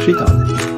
Šitādi.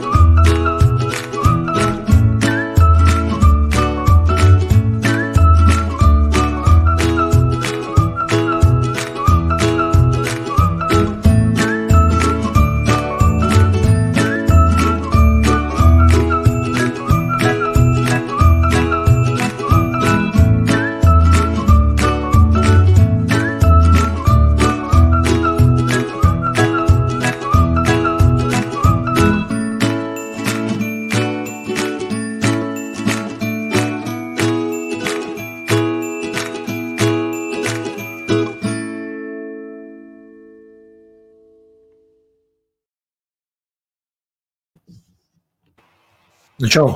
Nu, čau.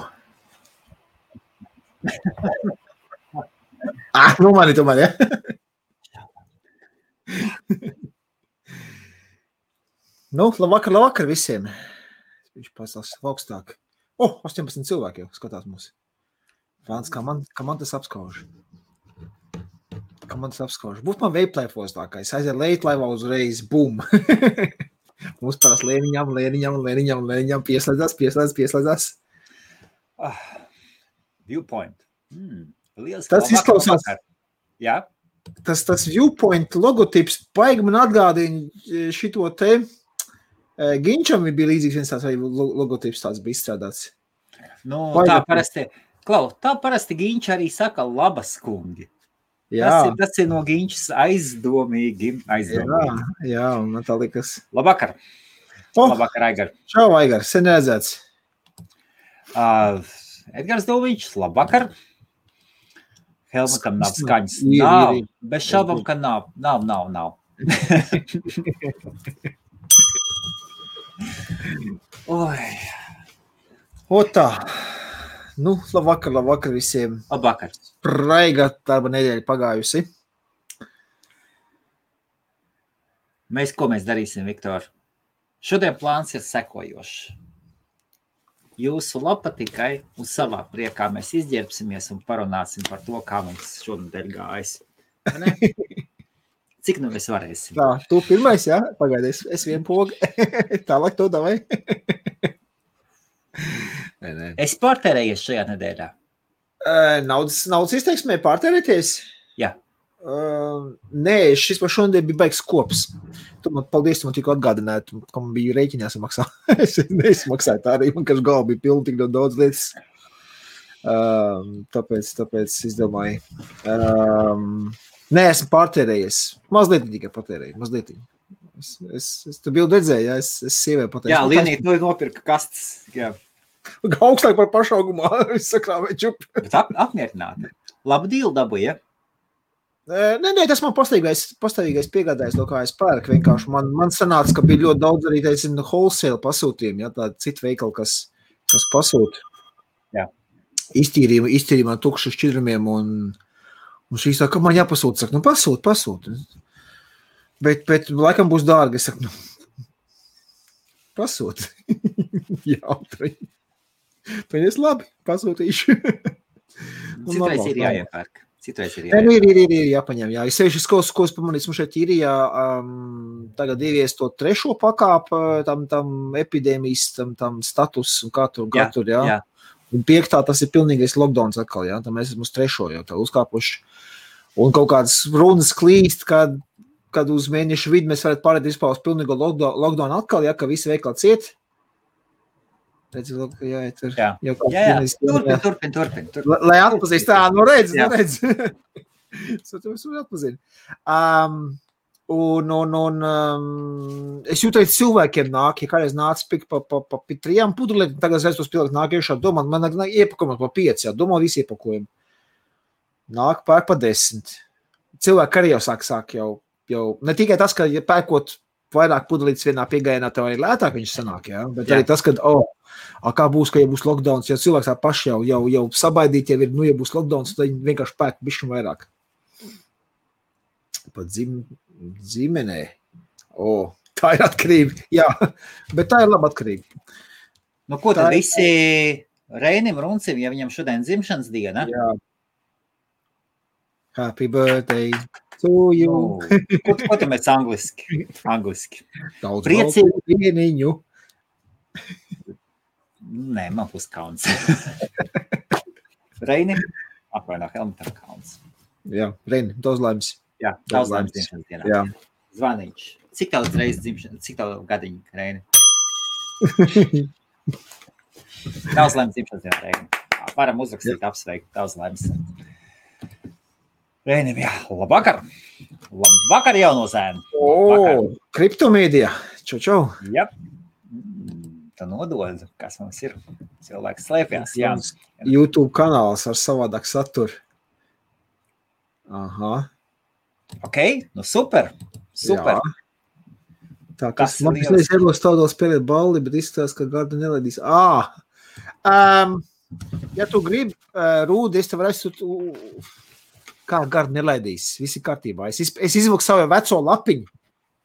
Nu mani tomēr, ja? Nu, labvakar visiem. Viņš pasās augstāk. 18 cilvēki jau skatās mūs. Fāns, kā man tas apskauž. Būtu man veiplēfos tā, ka es aiziet leitlaivā uzreiz, bum. Mums parās lēniņam pieslēdzās. Viewpoint. Tas izklausās. Jā. Tas Viewpoint logotips baigi man atgādina šito te. Ginčam bija līdzīgs viens tāds logotips tāds bija izstrādāts. Nu, tā parasti Ginča arī saka labas kungi. Jā. Tas ir no Ginčas aizdomīgi. Jā, man tā likas. Labvakar. Labvakar, Aigar. Čau, Aigar, sen redzēts. Edgars Doviņš, labvakar. Helmutam nav skaņas. Nav. Bez šaubam, ka nav. Nav. Oi. Tā. Nu, labvakar visiem. Labvakar. Spraiga darba nedēļa pagājusi. Ko mēs darīsim, Viktor? Šodien plāns ir sekojošs. Jūsu lapa tikai uz savā priekā mēs izģērbsimies un parunāsim par to, kā mums šonadēļ gājas. Cik nu mēs varēsim? Tā, tu pirmais, jā? Pagaidies, es vien pogu. Tālāk to davai. Nē. Es pārtērējies šajā nedēļā. Naudas izteiksmē pārtērēties? Jā. Nē, šis par šodien bija baigs kops. Paldies, tu man tikko atgādināji, ka man bija rēķinās maksā. Es neizmaksāju tā arī, man kaž galva bija pilna tik daudz lietas. Tāpēc es domāju. Nē, esmu pārtērējies. Mazliet tikai patērēju, mazliet. Es tu bildu redzēju, jā, es sievē patērēju. Jā, Lienīt, tu nopirka kastes. Jā. Augstāk par pašaugumā, es sakrāvēju čup. Bet apmierināti. Labu dīlu dabūja, ja? Nē, tas man pastāvīgais piegādājs, no kā es pērku. Vienkārši man sanāca, ka bija ļoti daudz arī wholesale pasūtījumi, ja, tādi citi veikali, kas pasūta. Jā. Iztīrījumā tukšu šķidrumiem un šīs saka, ka man jāpasūta. Saka, pasūt. Bet laikam būs dārgi. Es saku, pasūt. Jautri. Pēc labi, pasūtīšu. Citreiz ir jāiepērk. Ir jāpaņem, jā. Es sevišķi ko es pamanīju, mums šeit īrijā tagad ievies to trešo pakāpu, tam epidēmijas, tam status un katru, jā. Un 5. tas ir pilnīgais lockdowns atkal, jā. Tam mēs esam uz 3. jau tā uzkāpuši. Un kaut kādas runas klīst, kad uz mēnešu vidu mēs varētu pārēt vispār uz pilnīgo lockdown atkal, jā, ka visi veikali ciet. Redzi, jāiet tur. Jā. Turpin. Lai atpazīst, redz. Es atpazinu. Es jūtu, cilvēkiem nāk, ja kādreiz nāca pa 3 pudulēm, tagad es tos pielikt nāk iešā, domā, man iepakojumu pa 5, jā, domā visi iepakojumu. Nāk pērk pa 10. Cilvēki arī jau sāk jau, ne tikai tas, ka ja pērkot vairāk pudelītes vienā piegājienā, tev arī lētāk viņš sanāk, jā, bet arī tas, ka, kā būs, ka ja būs lockdowns, ja cilvēks tā paši jau sabaidīt, ja būs lockdowns, tad viņi vienkārši pērk bišķi vairāk. Pat zīmenē. Tā ir atkarība, jā, bet tā ir laba atkarība. Nu, ko tad visi Reinim Runcim, ja viņam šodien dzimšanas diena? Jā. Happy birthday To you. Ko tu mēs angliski? Daudz Priecīgi. baltu dieniņu. Nē, man būs kauns. Reini, apvainā Helmutam kauns. Jā, Reini, daudz laimes. Jā, daudz laimes dzimšanas dienā. Jā. Zvaniņš. Cik tev reizes dzimšanas, cik tev gadiņi, Reini? Daudz laimes dzimšanas dienā, Reini. Varam uzrakstīt, apsveikt, daudz laimes. Reinim, jā, labvakar. Labvakar, jauno zēnu. Kriptomēdija. Čau. Jā. Tā nodod, kas mums ir. Cilvēks slēpjās, jā. YouTube kanāls ar savādāk saturu. Aha. Ok, nu super. Super. Jā. Tā, kas man pēc ieros tādā spēlēt balli, bet izskatās, ka Garda nelaidīs. Ja tu gribi, Rūdi, es tev reiz, kā Garda nelaidīs, visi kārtībā. Es izvilku savu veco lapiņu,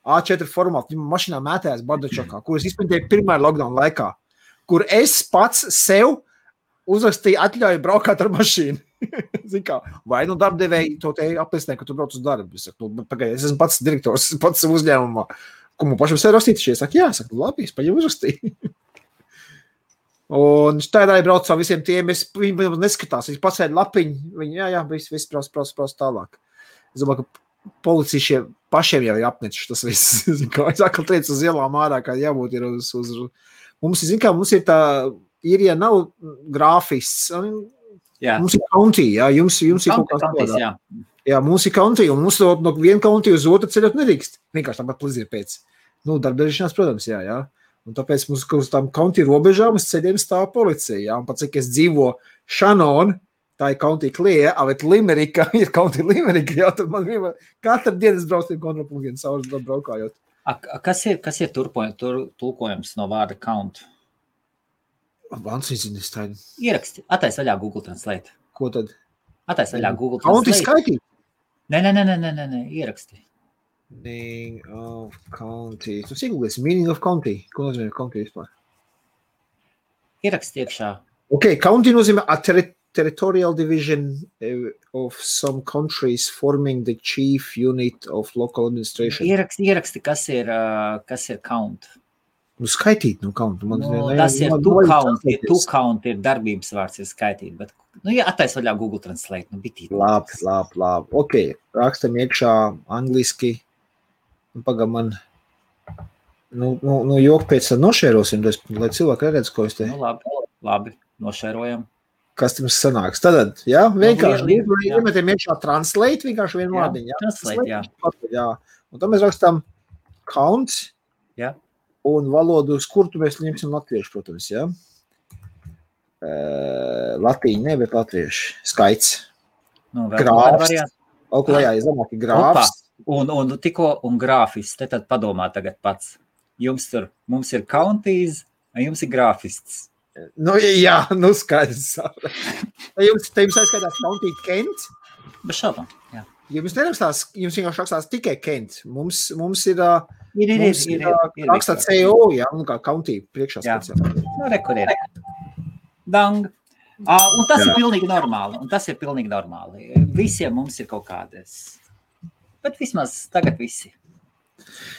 A4 formātu, viņam mašinā mētājās Bardačokā, kur es izprintēju pirmā lockdown laikā, kur es pats sev uzrakstīju atļauju braukāt ar mašīnu. Zin kā, vai nu darbdevēji to te apliecināja, ka tu brauc uz darbu. Es saku, pagaid, es esmu pats direktors, pats uzņēmumā. Ko man pašam sev rakstīt? Es saku, jā, labi, es paņem uzrakstīju. Un tādā brauc ar visiem tiem, viņi neskatās, viņi pasēd lapiņu, viņi, jā, viss brauc tālāk. Es domāju, ka policija pašiem jau ir apnečuši tas viss. Kā es atkal teicu uz ielām ārā, kā jābūt ir uz... Mums ir tā, ja nav grāfists, jā. Mums ir county, jā, jums ir kaut kā tāds. Jā, mums ir county, un mums no viena county uz otru ceļot nedrīkst. Vienkārši tāpat plizir pēc. Darbdarīšanās, protams, jā. Un tāpēc mums uz tām county robežām uz ceļiem stāv policija, jā. Un pat cik es dzīvo Shannon, tā ir county Clear, bet Limerika ir county Limerika, jā, tad man vienmēr katru dienu es braucu kontrolpunktiem savus braukājot. Kas ir tulkojums no vārda count? Vans izzinis tādu. Ieraksti, attais vaļā Google Translate. Ko tad? Attais vaļā Google Translate. County skaitīt? Nē, ieraksti. Meaning of county. Tu sigulēsi, meaning of county. Ko nozīmē county vispār? Ieraksti iekšā. Ok, county nozīmē a territorial division of some countries forming the chief unit of local administration. Ieraksti, kas ir count. Skaitīt, count. Tas ir to count ir darbības vārds, ir skaitīt, bet, ja attais vaļā Google Translate, bitīt. Labi. Ok, rakstam iekšā angliski. Pagā man, jok pēc tā nošērosim, lai cilvēki redz, ko es te. Labi, nošērojam. Kas jums sanāks? Tad, jā, vienkārši iemetiem iekšā translate, vienkārši vienu vārdiņu, jā. Translate, jā. Un tad mēs rakstam count. Jā. Un valodu, uz kur tu mēs ņemsim latviešu, protams, jā. Latīņi, ne, bet latviešu. Skaits. Grāfs. Oklējā, zamāk ir grāfs. Un grāfists. Te tad padomā tagad pats. Mums ir counties, un jums ir grāfists. Jā, skaidrs. Jums aizskaitās county Kent? Bez šaubām, jā. Jums nerakstās, jums vienkārši rakstās tikai Kent. Mums ir rakstā CO, jā, un kā county priekšā speciāli. Rekur ir. Dang. Un tas ir pilnīgi normāli. Visiem mums ir kaut kādas. Bet vismaz tagad visi.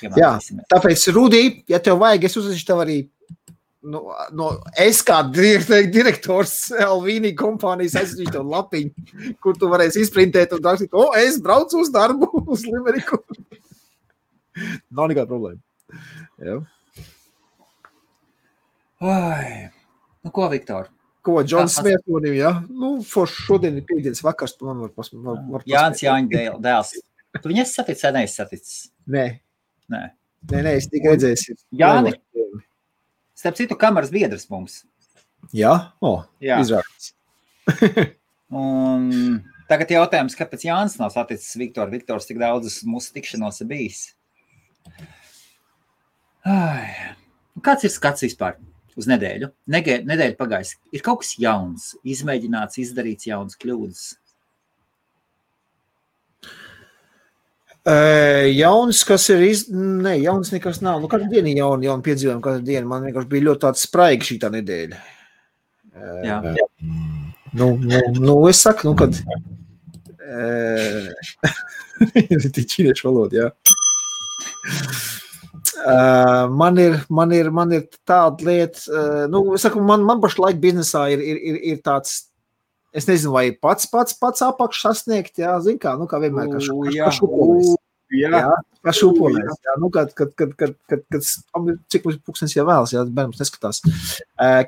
Jā, tāpēc, Rudī, ja tev vajag, es uzrakstīšu tev arī es kā direktors Elvīnī kompānijas aizsūtīšu tev lapiņu, kur tu varēsi izprintēt un rakstīt, es braucu uz darbu, uz Limeriku. Nav nekāda problēma. Jā. Ko, Viktor? Ko, Džons Smērtonim, jā? Šodien ir piektdienas vakars, tu man var Jānis Jāņa dēls. Tu viņu esi saticis vai neesi saticis? Nē, es tik redzēju. Jāni, starp citu kameras biedrs mums. Jā? Izrādās. Un tagad jautājums, kāpēc Jānis nav saticis Viktoru? Viktors tik daudzas mūsu tikšanos ir bijis. Kāds ir skats vispār uz nedēļu? Nedēļa pagājis. Ir kaut kas jauns, izmēģināts, izdarīts jauns kļūdas? Jauns, kas ir Nē, jauns nekas nav. Katru dienu ir jauni piedzīvojumi, katru dienu. Man vienkārši bija ļoti tāds spraiga šī tā nedēļa. Jā. Es saku, kad Tie ķīniešu valoda, jā. Man ir tāda lieta, saku, man pašlaik biznesā ir tāds, es nezinu, vai pats apakš sasniegt, jā, zin kā, kā vienmēr, kā šupolis. Jā, kā šupolis, jā, cik mums pūkstens jau vēlas, jā, bērnums neskatās.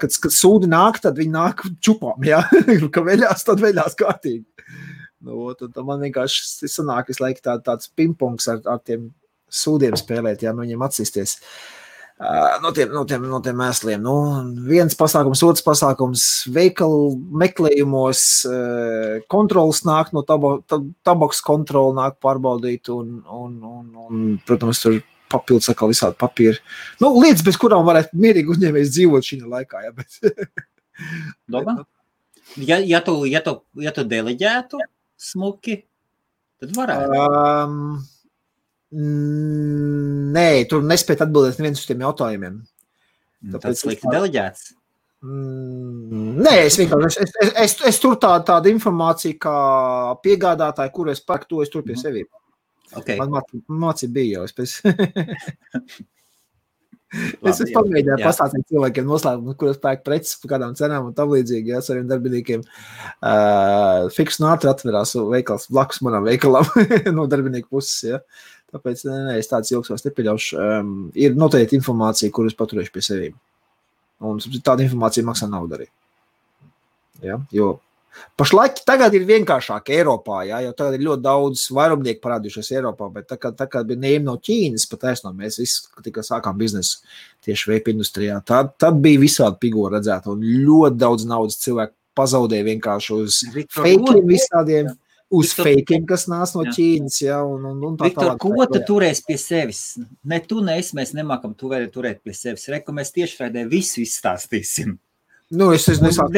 Kad sūdi nāk, tad viņi nāk čupām, jā, ka veļās, tad veļās kārtīgi. Tad man vienkārši sanāk visu laiku tāds pingpongs ar tiem sūdiem spēlēt, jā, no viņiem atsisties. No tiem mēsliem. Viens pasākums, otrs pasākums, veikalu meklējumos, kontrols nāk no tabaks kontrola nāk pārbaudīt un protams, tur papildus atkal visādi papīri. Lietas, bez kurām varētu mierīgi uzņēmējs dzīvot šī laikā, jā, bet. Domā? Ja tu deleģētu smuki, tad varētu. Nē, tur nespēt atbildēt neviens uz tiem jautājumiem. Tāpēc slikti deleģēts? Nē, es tur tāda informācija kā piegādātāji, kuru es pērku, to es tur pie sevi. Okay. Man mācība bija jau. Es pamēģināju pastāstīt cilvēkiem noslēgumu, kur es pērku preces par kādām cenām un tam līdzīgi, jā, saviem darbiniekiem. Fiks un ātri atverās veikals blakus manam veikalam no darbinieku puses, jā. Tāpēc, es tāds ilgs vairs nepieļaušu. Ir noteikti informācija, kur es paturēšu pie sevīm. Un tāda informācija maksā naudu arī. Ja? Jo pašlaik tagad ir vienkāršāk Eiropā, ja? Jo tagad ir ļoti daudz vairumnieku parādījušies Eiropā, bet tā kā bija neiem no Ķīnas, pataisno mēs visi tikai sākām biznesu tieši veipa industrijā. Tad bija visādi pigo redzēt, un ļoti daudz naudas cilvēku pazaudēja vienkārši uz fakiem visādiem. Uz fakiem, kas nāc no Ķīnas, jā, un tā Viktor, ko tu turēs pie sevis? Ne tu, ne es, mēs nemākam turēt pie sevis. Reku, mēs tiešraidē visu izstāstīsim. Es nesāku.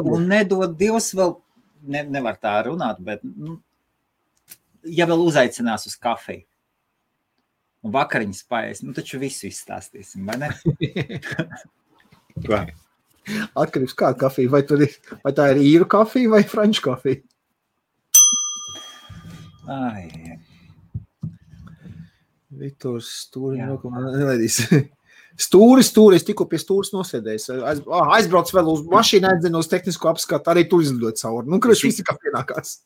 Un nedod Dievs vēl, nevar tā runāt, bet, ja vēl uzaicinās uz kafiju un vakariņas paēs, taču visu izstāstīsim, vai ne? Atkarības kāda kafija, vai tā ir īru kafija vai franču kafija? Viktors Stūri nelaidīs. Stūris, es tikko pie Stūris nosēdējis. Aizbrauc vēl uz mašīnu, aizdzinu uz tehnisko apskatu, arī tur izlidot cauri. Kurš visi kā pienākās.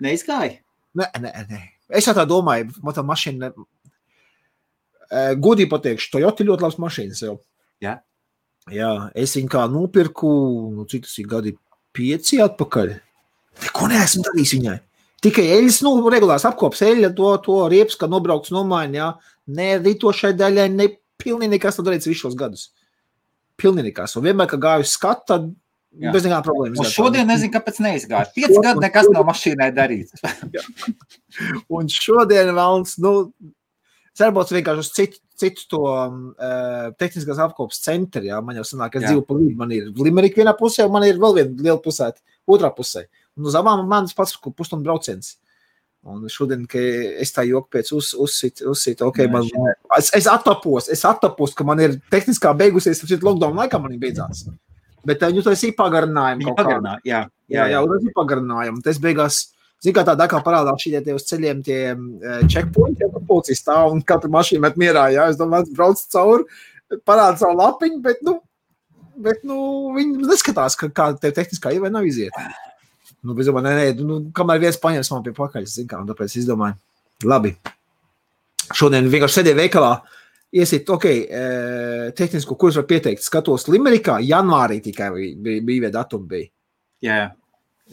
Neizgāja? Nē. Es tā domāju, man tā mašīna, godīgi pateikšu, Toyota ļoti labs mašīnas jau. Jā. Jā, es viņu kā nopirku, cik tas ir gadi 5 atpakaļ. Neko neesmu darījis viņai. Tikai eļas, regulārs apkops eļa, to riepas, kad nobraukts nomaini, jā. Ne rītošai daļai, ne pilnīgi nekas tad darīts visos gadus. Pilnīgi nekas. Un vienmēr, ka gāju skat, tad bez nekā problēmas. Un šodien nezinu, kāpēc neizgāju. 5 gadu nekas nav mašīnai darīts. Un šodien vēlns, cerbots vienkārši uz citu to tehniskās apkopas centri, jā. Man jau sanāk, es dzīvu pa līdzi, man ir Limerick vienā pusē, un man ir vēl viena liela pusēta otrā pusē. Un uz abām manas pats pusstundu brauciens. Un šodien, ka es tā joku pēc uzsit, es attapos, ka man ir tehniskā beigusies, šeit lockdown laikā man ir beidzās. Bet jūs tas ir pagarinājumu kaut kādā. Jā, tas ir pagarinājumu. Tas beigās, zin kā tādā kā parādās šī tie uz ceļiem tie checkpointi, ja policijas stāv un katra mašīna met mierā, jā. Es domāju, brauc cauri, parāda savu lapiņu, bet viņi neskatās, kā tev tehniskā ir vai nav iziet. Es domāju, kamēr viens paņems man pie pakaļ, un tāpēc es domāju, labi. Šodien vienkārši sēdēju veikalā, iesiet, tehnisko kursu var pieteikt. Skatos Limerickā, janvārī tikai bija datumi bija.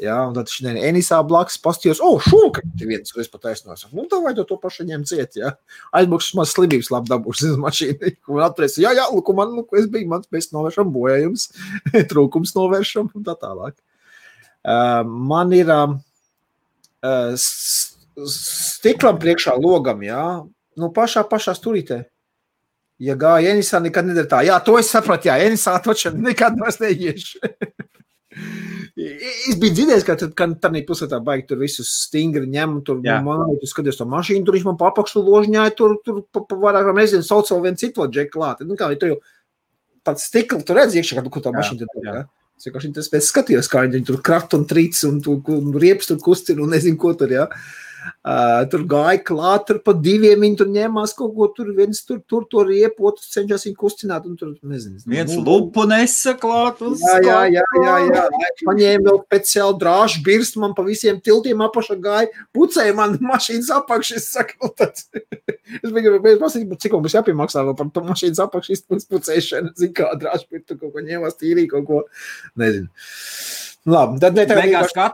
Jā, un tad šodien Enisā blakus pastījos, šūka, viens, es pat aiznos. Tā vajag to pašu ņem ciet, jā. Aizbukšas maz slimības labi dabūšas mašīnu. Un atprēs, es biju, mans mēs novēršam bojājums, trūkums novēršam un tā tālāk. Man ir stiklam priekšā logam, jā, pašā sturītē. Ja gāja Enisā, nekad nedara tā. Jā, to es sapratu, jā, Enisā točam nekad vairs neiešu. Es biju dzirdējis, ka tādā pusētā baigi tur visus stingri ņem, tur tu skaties to mašīnu, tur viņš man papakšu ložņāja, tur vairāk nezinu, sauc vēl vienu citu džeku klāt. Kā tur jau tāds stikli, tu redz iekšā, kur tā mašīna tur, jā. Es skatījos, kā viņi tur krat un trīc un riepas tur kustina un nezinu, ko tur, jā. Tur gāja klāt, tur pa diviem viņi tur ņēmās kaut ko, tur viens tur to riepu, otrs cenšas viņu kustināt un tur, nezinu. Viens lupu nesa klāt un Jā. Paņēma vēl speciāli drāžu birstu, man pa visiem tiltiem apašā gāja, pucēja man mašīnas apakšas, saka, tāds. Es biju pasīt, cik mums jāpiemaksā vēl par mašīnas apakšas pucēšanu, zin kā drāžu birstu kaut ko ņēmās tīrī kaut ko, nezinu. Labi, tad beigās, kā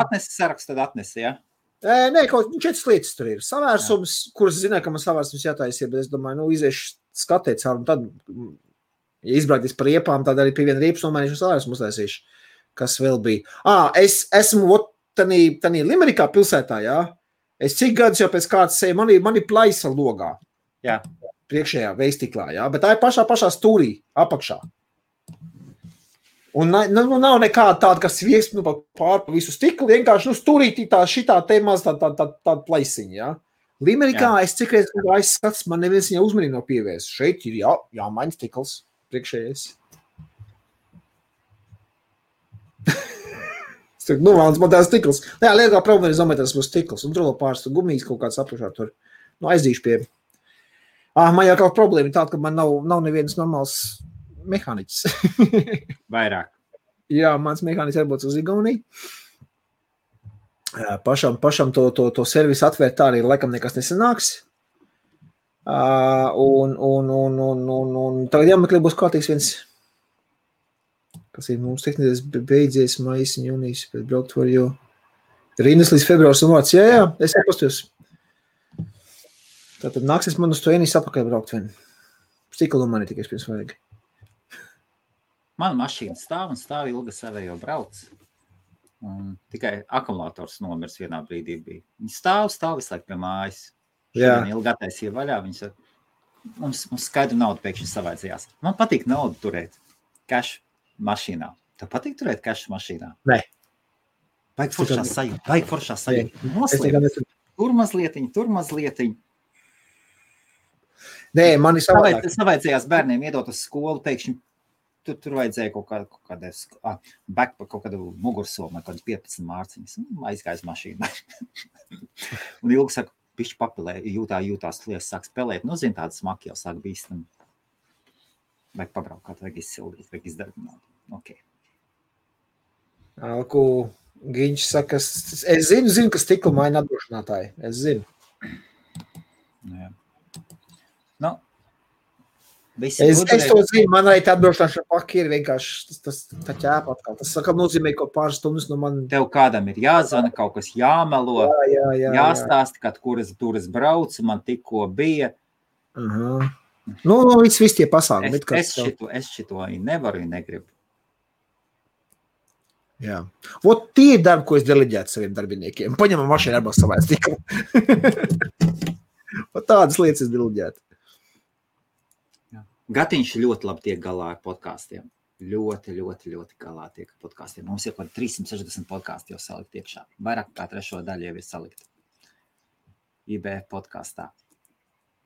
atnesi sarakstu, tad atnesi, jā? Nē, kaut 4 lietas tur ir. Savērsums, kuras zināju, ka man savērsums jātaisa, bet es domāju, iziešu skatēt caur, un tad, ja izbrauktīs par riepām, tad arī pie viena riepas nomainīšu un savērsumu uztaisīšu, kas vēl bija. Es esmu tanī Limerikā pilsētā, jā. Es cik gadus jau pēc kāds seju, man ir plaisa logā. Jā. Priekšējā veistiklā, jā, bet tā ir pašā stūrī, apakšā. Un nav nekāda tāda, kas viesp pār visu stiklu, vienkārši stūrītī šitā te maz tāda plaisiņa, jā. Limerikā es cik reiz aizskats, man neviens viņā uzmanīgi nav pievērsts. Šeit ir jāmaņa stikls priekšējais. Vēlams, man tās stikls. Jā, liekā problēma ir zametās būs stikls. Un tur vēl pāris gumijas kaut kāds apakšā tur. Aizdīšu pie. Man jau kaut problēma ir tāda, ka man nav neviens normāls mehāniķis. Vairāk. Jā, mans mehāniķis jābūt uz Igauniju. Pašam to servisu atvērt tā arī laikam nekas nesanāks. Un tagad jāmeklē būs kārtīgs viens, kas ir mums tehniskais beidzies maijas un jūnijas, bet braukt var jau rindas līdz februārs un vārds. Jā, es jāpastos. Tātad nāksies man uz to Enijas apakaļ braukt vien. Stiklu mani tikai pirms vajag. Mana mašīna stāv ilga savējo brauc. Un tikai akumulators nomirs vienā brīdī bija. Viņi stāv visu laiku pie mājas. Šodien ilgi attaisīja vaļā. Mums skaidru naudu pēkšņi savaidzījās. Man patīk naudu turēt cash mašīnā. Tev patīk turēt cash mašīnā? Nē. Baigi foršā sajūta. Noslēp. Tur mazlietiņ. Nē, man ir savādāk. Savaidzījās bērniem iedot uz skolu pēkšņi. Tur vajadzēja kaut kādu mugursomu, kaut kādu 15 mārciņas. Aizgājas mašīnā. Un ilgi saka, pišķi papilē, jūtās lies, sāk spēlēt. Zin, tāda smaki jau sāk bīstam. Vajag pabraukāt, vajag izsildīt, vajag izdarbināt. Ok. Alku Giņš saka, es zinu, ka stikla maina atdrošinātāji. Es zinu. Jā. Es to zinu, man arī tā atdrošināšana paki ir vienkārši tā ķēpa atkal. Tas saka, nozīmē, ka pāris stundas no man... Tev kādam ir jāzvana, kaut kas jāmelo, jāstāsta, kad kuras brauc, man tikko bija. Viss tie pasākumi. Es šito nevaru, negribu. Jā. Tie ir darbi, ko es deleģētu saviem darbiniekiem. Paņemam mašīnu arba savā stiklu. Tādas lietas es deleģētu. Gatiņš ļoti labi tiek galā ar podkāstiem. Ļoti galā tiek ar podkāstiem. Mums ir kaut 360 podkāsti jau salikt iekšā. Vairāk kā 3 daļu jau ir salikt. IBF podkāstā.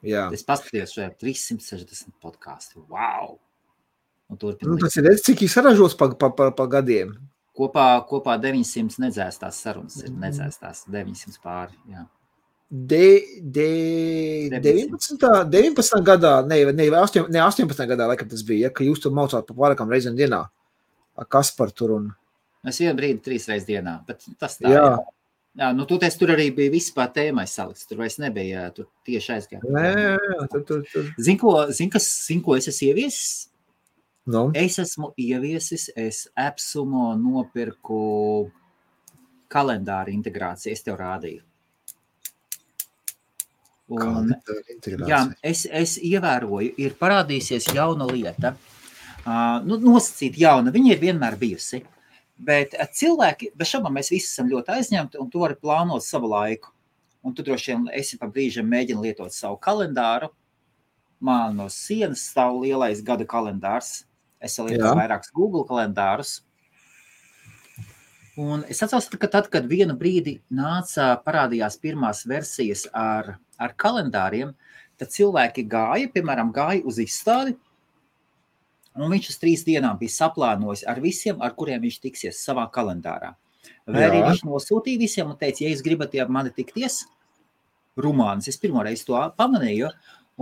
Jā. Es paskatījos šajā 360 podkāsti. Wow! Tas ir cik saražos pa gadiem. Kopā 900 nedzēstās sarunas ir. Nedzēstās 900 pāri, jā. 19. gadā, ne 18. gadā, laikam tas bija, ka jūs tur maucāt pa vairākām reizēm dienā. Kas par tur un... Es vienu brīdi 3 reizes dienā, bet tas tā. Jā, tur arī bija vispār tēmai salikts. Tur vairs nebija, tur tieši aizgāt. Tur. Zin, ko es esmu ieviesis? No. Es esmu ieviesis, es Epsumo nopirku kalendāru integrāciju, es tev rādīju. Un, jā, es ievēroju, ir parādīsies jauna lieta, nosacīt jauna, viņa ir vienmēr bijusi, bet cilvēki, bez šabām mēs visi esam ļoti aizņemti, un tu vari plānot savu laiku, un tu droši vien esi pa brīžiem mēģini lietot savu kalendāru, man no sienas stāv lielais gada kalendārs, es lietoju vairākus Google kalendārus, un es atceros, ka tad, kad vienu brīdi parādījās pirmās versijas ar kalendāriem, tad cilvēki gāja uz izstādi, Un viņš uz 3 dienām bija saplānojis ar visiem, ar kuriem viņš tiksies savā kalendārā. Vai arī viņš nosūtīja visiem un teica, ja jūs gribat ar mani tikties, rumānis, es pirmoreiz to pamanīju,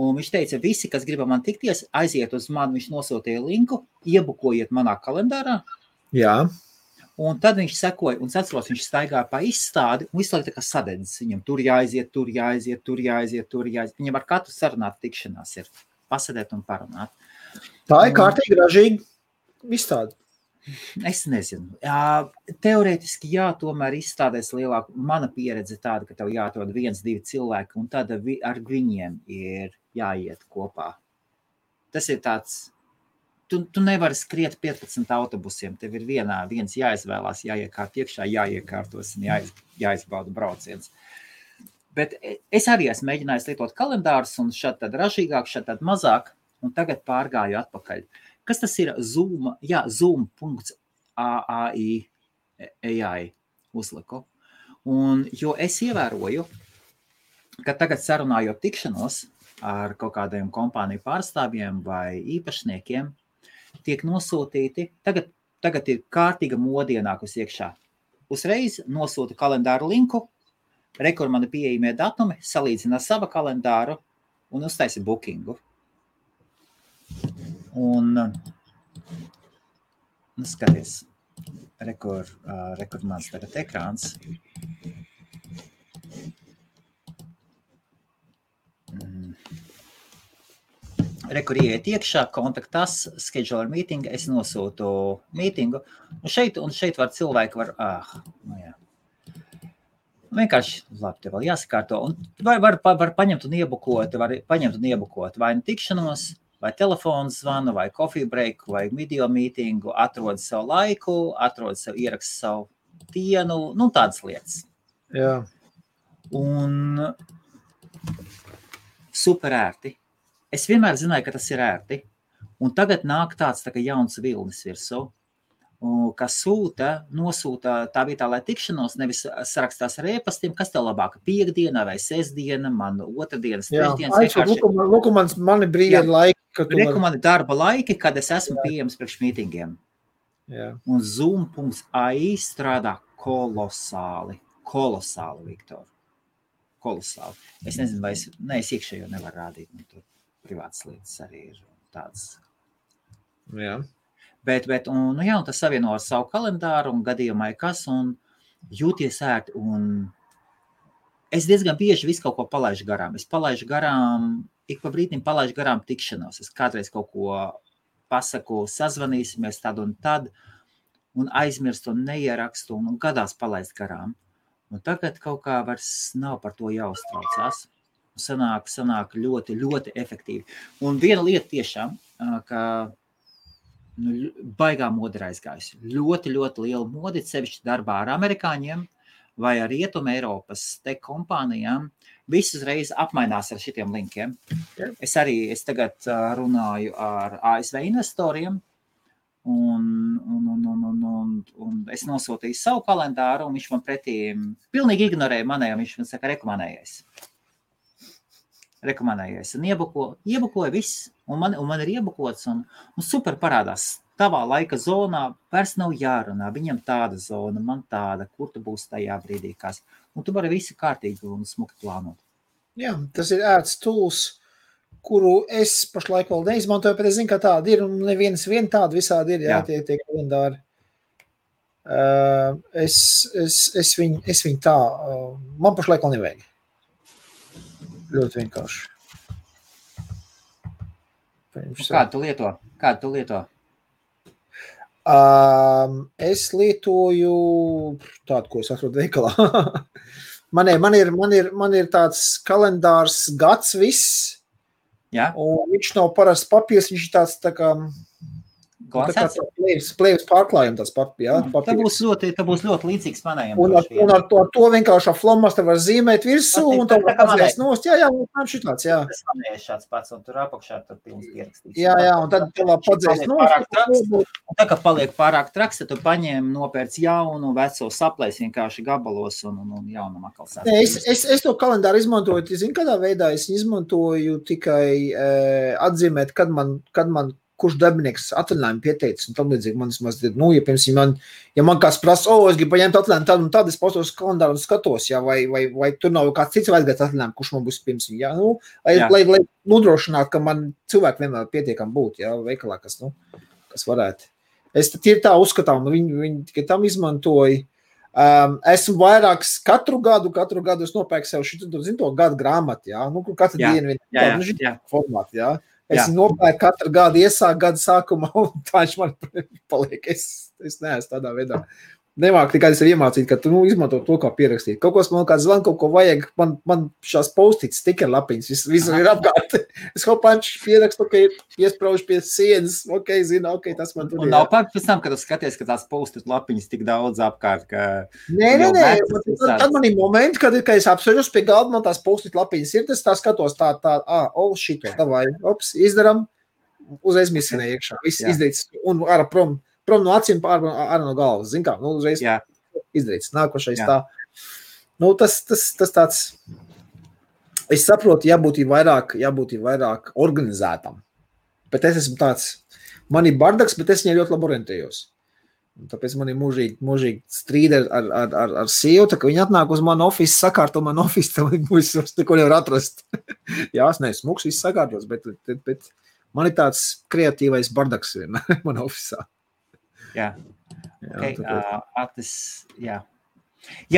un viņš teica, visi, kas grib man tikties, aiziet uz mani, viņš nosūtīja linku, iebukojiet manā kalendārā. Jā. Un tad viņš sekoja, un atceros, viņš staigāja pa izstādi, un visu laiku tā kā sadedzis viņam, tur jāaiziet. Viņam ar katru sarunāt tikšanās ir pasēdēt un parunāt. Tā ir kārtīgi ražīga izstāde. Es nezinu. Jā, teorētiski jā, tomēr izstādēs lielāk. Mana pieredze tāda, ka tev jāatrod 1-2 cilvēki, un tad ar viņiem ir jāiet kopā. Tas ir tāds, tu nevari skriet 15 autobusiem, tev ir viens jāizvēlās, jāiekārt iekšā, jāiekārtos un jāizbauda brauciens. Bet es arī esmu mēģinājis lietot kalendārus, un šad tad ražīgāk, šad tad mazāk, un tagad pārgāju atpakaļ. Kas tas ir? Zoom, jā, zoom.ai uzliku. Un, jo es ievēroju, ka tagad sarunājot tikšanos ar kaut kādiem kompāniju pārstāvjiem vai īpašniekiem, tiek nosūtīti, tagad ir kārtīga modienākus iekšā. Uzreiz nosūta kalendāru linku, rekur mani pieejamie datumi, salīdzina sava kalendāru un uztaisa bookingu. Un, skaties, rekur mans tagad ekrāns. Rekur ieiet iekšā, kontaktās, schedule meeting, es nosūtu mītingu, un šeit var cilvēki vienkārši, labi, te vēl jāsakārto, un var paņemt un iebukot, vai nu tikšanos, vai telefonu zvanu, vai coffee break, vai video mītingu, atrod savu laiku, ierakst savu dienu, tādas lietas. Jā. Un super ērti. Es vienmēr zināju, ka tas ir ērti, un tagad nāk tāds tā kā jauns vilnis virsū, kas nosūta tā vietā, lai tikšanos, nevis sarakstās ar e-pastiem, kas tev labāka, piekdiena vai sestdiena, man otrdienas, trešdienas. Lūk, mani brīvi laiki. Reku mani darba laiki, kad es esmu pieejams priekš mītingiem. Jā. Un Zoom.ai strādā kolosāli, Viktor. Kolosāli. Es nezinu, vai es iekšējo nevaru rādīt, tur privātas lietas arī ir tādas. Jā. Bet un tas savieno ar savu kalendāru un gadījumai kas, un jūties ērti, un es diezgan bieži visu kaut ko palaižu garām. Es palaižu garām, ik pa brīdim palaižu garām tikšanos. Es kādreiz kaut ko pasaku, sazvanīsimies tad un tad, un aizmirstu un neierakstu, un gadās palaist garām. Un tagad kaut kā vairs nav par to jāuztraucās. Sanāk ļoti, ļoti efektīvi. Un viena lieta tiešām, ka baigā moda ir aizgājusi. Ļoti, ļoti liela modi, sevišķi darbā ar amerikāņiem vai ar Rietumu Eiropas tech kompānijām. Visi uzreiz apmainās ar šitiem linkiem. Es tagad runāju ar ASV investoriem, un es nosūtīju savu kalendāru, un viņš man pretī pilnīgi ignorēja manēju, viņš man saka, rekomendējies. Un iebukoja viss, un man ir iebukots, un super parādās. Tavā laika zonā vairs nav jārunā, viņam tāda zona, man tāda, kur tu būsi tajā brīdī, kas. Un tu vari visu kārtīgi un smuki plānot. Jā, tas ir ērts tools, kuru es pašlaik vēl neizmantoju, bet es zinu, ka tāda ir, un nevienas tāda visādi ir, tie kalendāri. Es viņu tā, man pašlaik vēl nevajag. Ļoti vienkārši. Kādu tu lieto? Es lietoju tādu, ko es atrodu veikalā. man ir tāds kalendārs gads viss, un viņš nav parasts papīrs, viņš ir tāds tā kā plēvis pārklājumi tāds papīrs. Tā būs ļoti līdzīgs manējiem. Un ar to vienkārši flomas te var zīmēt virsū, un tā var padzēst nost. Jā, šitāds, jā. Tas manējais šāds pats, un tur apakšā tur pilns pierakstīts. Jā, un tad padzēst nost. Un tā, ka paliek pārāk traks, tad tu paņem, nopērc jaunu, veco saplēs vienkārši gabalos un jaunam atkal sāc. Es to kalendāru izmantoju, zinu, kādā veidā es izmantoju tikai atzīmēt, kad man kurš darbinieks atvaļinājumu pieteicis, un tam līdzīgi man ja, piemēram, man kāds prasa, es gribu paņemt atvaļinājumu tādu un tādu, es postos kalendāru un skatos, ja, vai tur nav kāds cits vajadzēs atvaļinājumu, kurš man būs pirms, ja, lai nodrošinātu, ka man cilvēki vienmēr pietiekam būt, ja, veikalā, kas varētu. Es tīri tā uzskatām, viņi tikai tam izmantoja. Esmu vairāks katru gadu es nopērku sev to gadu grāmatu, ja, katru dienu formātu, ja. Es nopērku katru gadu, iesāku gada sākumā, un tā viņš man paliek. Es neesmu tādā veidā. Nemāk tikai es iemācīt, ka tu izmanto to, kā pierakstīt. Kaut ko man kāds zvan, kaut ko vajag, man šās post-its, stiker lapiņas, visur ir apkārt. Es hopanč pierakstu, ka ir piespraužu pie sienas, zinu, tas man tur ir. Un nav pār pēc tam, kad tu skaties, ka tās post-it lapiņas tik daudz apkārt, ka... Nē, tad man ir momenti, kad es apsvežos pie galda, man tās post-it lapiņas ir, tas tā skatos šito, davai, izdaram, uzreiz misinē iekšā, viss izdarīts, un ārā prom no acīm, ārā no galvas, zin kā, uzreiz izdarīts, nākošais tā. Tas tāds, es saprotu, jābūt vairāk organizētam, bet es esmu tāds, man ir bardaks, bet es viņai ļoti labi orientējos. Un tāpēc man ir mūžīgi strīdi ar sievu, tā ka viņi atnāk uz manu ofisu, sakārto manu ofisu, tā es neko nevar atrast. Jā, es neesmu smuks, viss sakārtos, bet man ir tāds kreatīvais bardaks vienmēr man ofisā. Jā,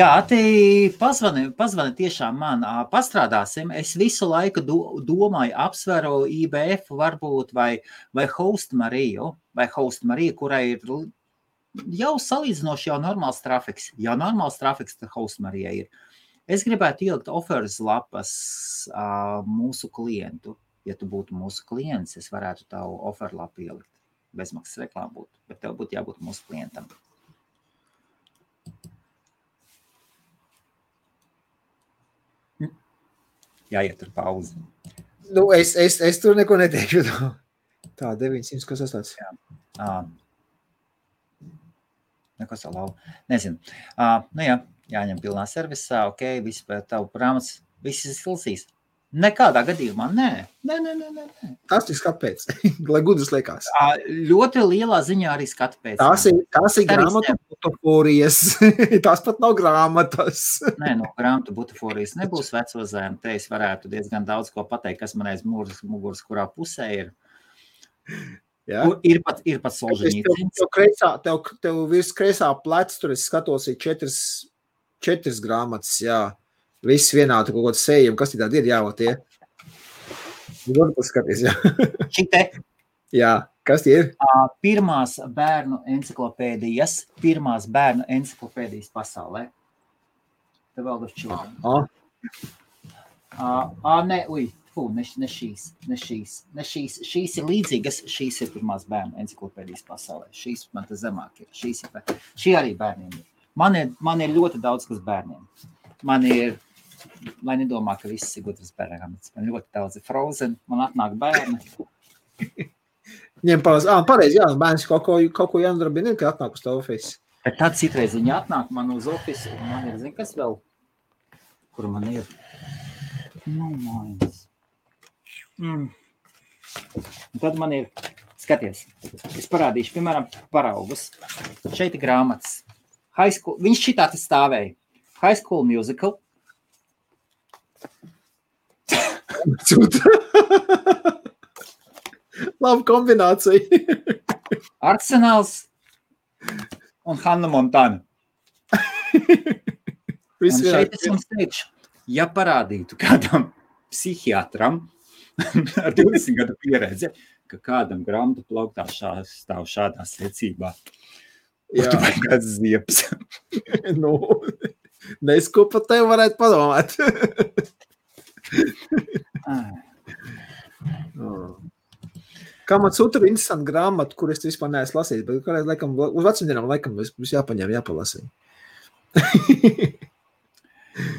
Ati pazvani tiešām man, pastrādāsim, es visu laiku domāju, apsveru IBF varbūt vai Host Mariju, kurai ir jau salīdzinoši jau normāls trafiks, tad Host Marija ir. Es gribētu ielikt offers lapas mūsu klientu, ja tu būtu mūsu klients, es varētu tavu offer lapu ielikt. Bezmaksas reklāma būtu, bet tev būtu jābūt mūsu klientam. Jāiet tur pauzi. Es tur neko neteikšu. Tā, 900, kas tas tāds? Neko salau. Nezinu. Jāņem pilnā servisā, viss pēc tavu prāmas, viss izsilsīs. Nekādā gadījumā, nē. Tas ir skatu pēc, lai gudrs liekas. Ļoti lielā ziņā arī skatu pēc. Tās ir grāmatu butaforijas. Tās pat nav grāmatas. Nē, no grāmatu butaforijas nebūs veco zēmu. Te es varētu diezgan daudz ko pateikt, kas man aiz muguras, kurā pusē ir. Ja? Ir pat Solženīcins. Tev virs kreisā plec, tur es skatos, ir četras grāmatas, jā. Viss vienādi kaut kāds sējumi, kas tādi ir jāvot tie? Var paskaties, jā. Šite? Jā, kas tie ir? Pirmās bērnu enciklopēdijas pasaulē. The World of Children. Šīs ir līdzīgas, šīs ir pirmās bērnu enciklopēdijas pasaulē. Šīs man te zemāk ir. Šī arī bērniem ir. Man ir ļoti daudz, kas bērniem. Man ir, lai nedomā, ka viss ir gudras bērnāmats. Man ļoti daudz ir Frozen, man atnāk bērni. Ņem pareizi, jā, bērns kaut ko jānodarbina, ka atnāk uz tavu ofisu. Bet tad citreiz viņi atnāk man uz ofisu, un man ir, kas vēl, kur man ir? Mājas. Un tad man ir, skaties, es parādīšu, piemēram, paraugus. Šeit ir grāmatas. Viņš šitā te stāvēja. High School Musical. Laba kombinācija. Arsenāls un Hannah Montana. Un šeit es jums teikšu, ja parādītu kādam psihiatram ar 20 gadu pieredzi, ka kādam grāmatu plauktā stāv šādā secībā, tu vai kāds ziepes. Nesko pat tev varētu padomāt. Kā man sūta ir interesanti grāmata, kur es vispār neesmu lasījis, bet kādreiz laikam, uz vecumdienām laikam būs jāpaņem, jāpalasīt.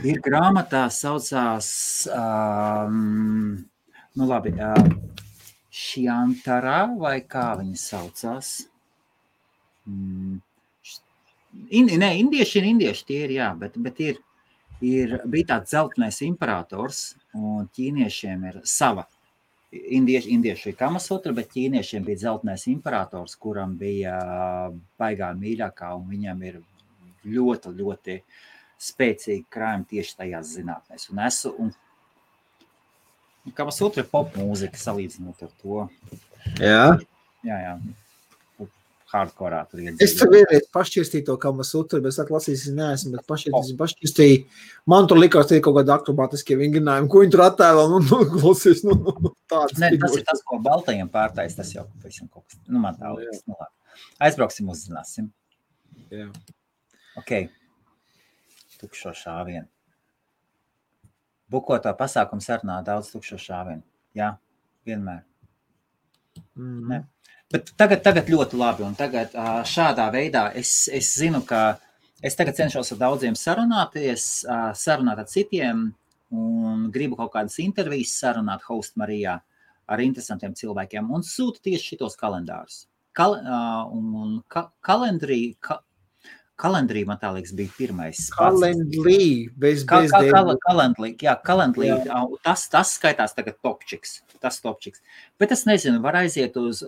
Ir grāmatā saucās, Šiantara, vai kā viņa saucās? Indieši tie ir, jā, bet bija tāds zeltenais imperators, un ķīniešiem ir sava indieši Kamasutra, bet ķīniešiem bija dzeltenais imperators, kuram bija baigā mīļākā, un viņam ir ļoti, ļoti spēcīgi krājumi tieši tajās zinātnēs. Un Kamasutra ir pop mūzika salīdzinot ar to. Jā. Jā. Hardkorā tur iedzīvot. Es tur vienreiz pašķirstīju to Kamasutra, bet es lasīju, neesmu, bet pašķirstīju. Man tur likās tie kaut kādi akrobātiskie vingrinājumi, ko viņi tur attēlo, klausies, tāds. Ne, tas ir tas, ko baltajiem pārtais, tas jau pavisam kaut kas, man tā liekas, Aizbrauksim, uzzināsim. Jā. Ok, tukšo šāvienu. Bukotā pasākuma sarunā daudz tukšo šāvienu. Jā, vienmēr. Ne. Bet tagad ļoti labi, un tagad šādā veidā es zinu, ka es tagad cenšos ar daudziem sarunāt ar citiem, un gribu kaut kādas intervijas sarunāt Host Marijā ar interesantiem cilvēkiem, un sūtu tieši šitos kalendārus. Kalendrī, man tā liekas, bija pirmais. Kalendrī, bez Kalendrī, tas skaitās tagad topčiks. Bet es nezinu, var aiziet uz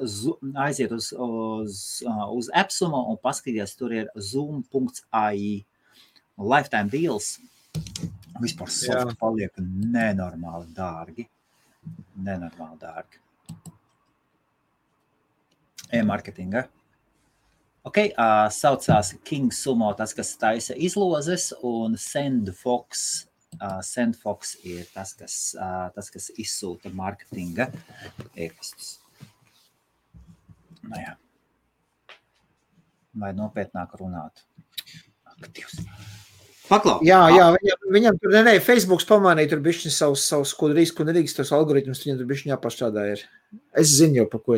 Epsumo un paskatīties, tur ir zoom.ai lifetime deals. Vispār softi paliek nenormāli dārgi. E-marketinga. Ok, saucās King Sumo, tas, kas taisa izlozes, un SendFox ir tas, kas izsūta marketinga e-pastus. Jā. Vai nopietnāk runāt? Aktīvs. Paklau. Jā, viņam tur, Facebooks pamanīja, tur bišķi savus, ko nedrīkst, tos algoritmus, viņam tur bišķi jāpašķādā ir. Es zinu jau, pa ko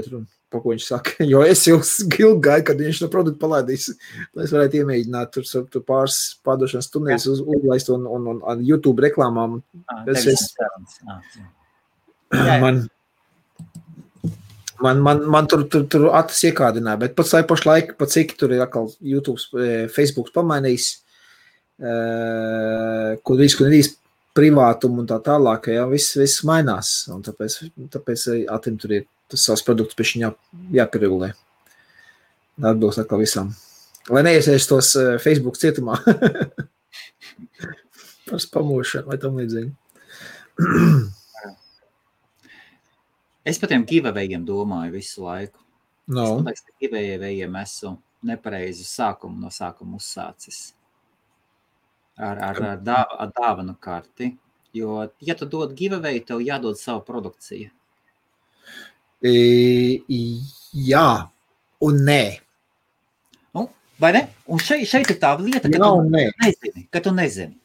viņš saka, jo es jau gāju, kad viņš no produktu palaidīs, lai es varētu iemēģināt tur pāris pārdošanas tunēs uzlaist un YouTube reklāmām. Man tur atas iekādināja, bet pats pašlaik, cik tur ir atkal YouTube, Facebooks pamainījis, ko nedrīkst privātumu un tā tālāk, jā, viss mainās, un tāpēc atim tur ir tas savs produkts pēc viņa jāpieregulē. Atbilst atkal visam. Lai neiesies tos Facebook cietumā. Par spamošanu vai tam līdzīgi. Es par tiem giveawayiem domāju visu laiku. No. Es domāju, ka giveawayiem esmu nepareizi no sākuma uzsācis. Ar dāvanu karti. Jo, ja tu dod giveaway, tev jādod savu produkciju. Jā, un nē. Vai ne? Un šeit ir tā lieta, ka tu nezini.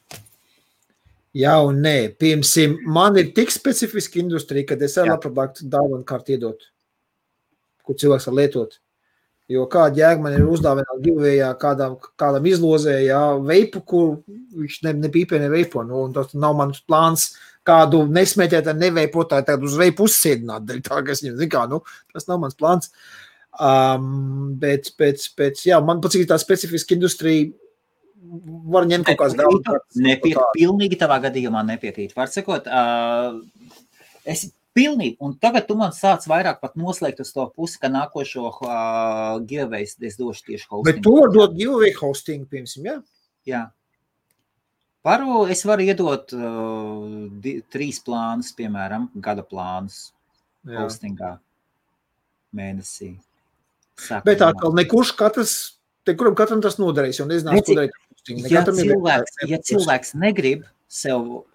Jā un nē. Piemēram, man ir tik specifiska industrija, kad es labprāt dāvanu karti iedot, kur cilvēks var lietot. Jo kāda jēga man ir uzdāvināt giveawayā kādam izlozē, veipu, kur viņš nepīpē ne veipo, un tas nav mans plāns kādu nesmēķēt ar neveipotāju, tagad uz veipu uzsēdināt, tā, ka es viņam zinu, tas nav mans plāns. Bet man pats ir tā specifiska industrija, var ņemt kaut kāds daudz. Pilnīgi tavā gadījumā nepiekrīt. Var sakot, es pilnīgi, un tagad tu man sāc vairāk pat noslēgt uz to pusi, ka nākošo giveaway es došu tieši hosting. Bet tu var dot giveaway hosting, piemēram, jā? Jā. Es varu iedot 3 plānus, piemēram, gada plānus hostingā mēnesī. Bet atkal nekurš katram tas nodarīs, jo nezinās, ko darīt hosting. Ja cilvēks negrib sev,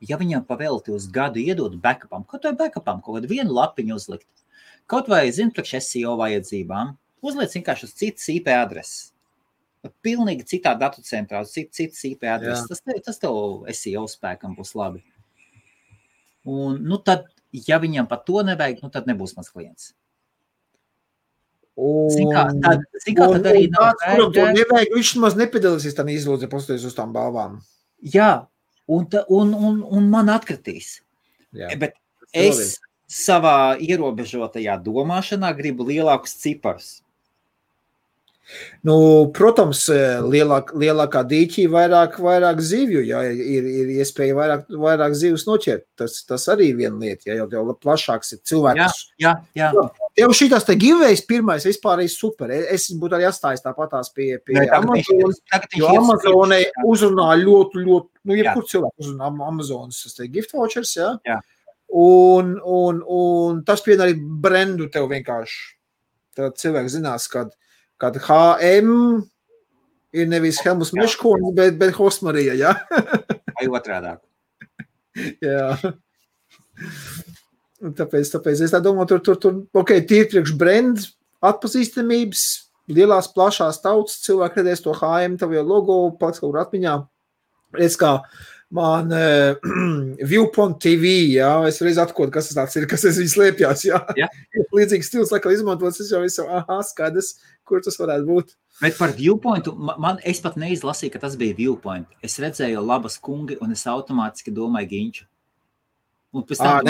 ja viņam pavēlti uz gadu iedot backupam, kaut kādu vienu lapiņu uzlikt, kaut vai, priekš SEO vajadzībām, uzliec vienkārši uz citas IP adreses. Pilnīgi citā datu centrā, citas IP adreses. Tas tev SEO spēkam būs labi. Un, tad, ja viņam pat to nevajag, tad nebūs mans klients. Tad arī kuram to nevajag, viņš maz nepiedalīsies tam izlūdze, pastoties uz tām balvām. Jā, un man atkritīs. Jā. Bet es savā ierobežotajā domāšanā gribu lielākus ciparus. Nu, protams, lielākā dīķī vairāk zivju, ja ir iespēja vairāk zivs noķert. Tas arī viena lieta, ja jau plašāks ir cilvēks. Jā. Jau šitās te giveaways pirmais vispār ir super. Es būtu arī atstājis tāpatās pie Amazonas, jo Amazonai uzrunā ļoti, jebkur cilvēku uzrunā Amazonas gift vouchers, jā. Un tas pien arī brendu tev vienkārši. Tad cilvēks zinās, kad HM ir nevis Helmus Meškonis, bet Hosmarija, jā? Vai otrādāk. Jā. Tāpēc es tā domāju, tur tīri priekš brand atpazīstamības, lielās plašās tautas, cilvēki redzēs to HM, tavu jau logo, paliks kaut kur atmiņā. Redz, kā man Viewpoint TV, jā, es reiz atkot, kas tas tāds ir, kas es viņu slēpjās, jā. Līdzīgs stils, laikam izmantots, es jau visu, skaidrs, kur tas varētu būt. Bet par Viewpointu, es pat neizlasīju, ka tas bija Viewpoint. Es redzēju labas kungi, un es automātiski domāju Ginču. Un pēc tam,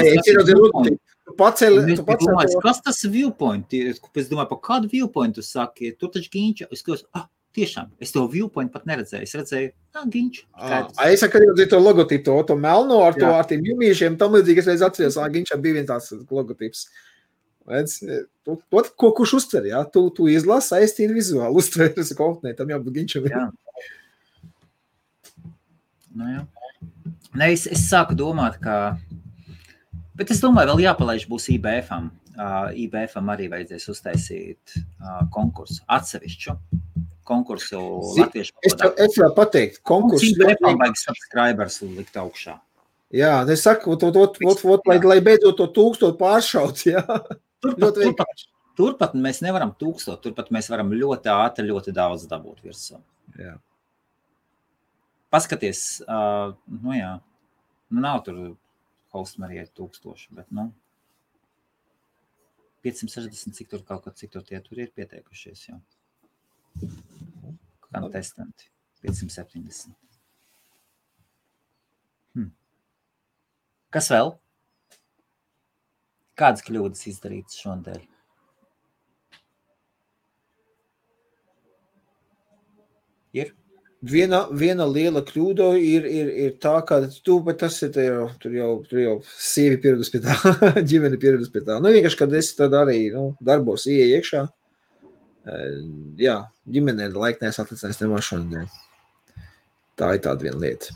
kas tas Viewpoint ir? Es domāju, par kādu Viewpoint tu saki? Tur taču Ginču. Es klausu, tiešām, es to Viewpoint pat neredzēju. Es redzēju, Ginču. Es saku, arī to logotipu, to melno ar tiem jumīšiem, tam līdzīgi es reiz atceros, Ginčam bija viens tāds logotips. Kurš uztver, jā? Tu izlasi, aiztīri vizuāli, uztver, es saku, tam jābūt Ginčam. Jā. Jā. Ne, es sāku domāt, ka... Bet es domāju, vēl jāpalaiž būs IBF-am. IBF-am arī vajadzēs uztaisīt konkursu, atsevišķu konkursu latviešu valodā. Es vēl pateikt, konkursu... IBF-am vajag subscribers likt augšā. Jā, es saku, lai beidzot to 1000 pāršaut, jā. Turpat mēs nevaram 1000, turpat mēs varam ļoti ātri, ļoti daudz dabūt virsū. Jā. Paskaties, nav tur Hostmarijai 1000, bet, 560, cik tur tie tur ir pieteikušies jau. Kontestanti, 570. Kas vēl? Kādas kļūdas izdarītas šodien? Ir? Viena liela kļūda ir tā, ka bet tas ir tur jau sievi pieredus pie tā, ģimene pieredus pie tā. Vienkārši, kad es tad arī darbos ieeju iekšā, jā, ģimenē laiknēs atlicinājis nemašanu. Tā ir tāda viena lieta.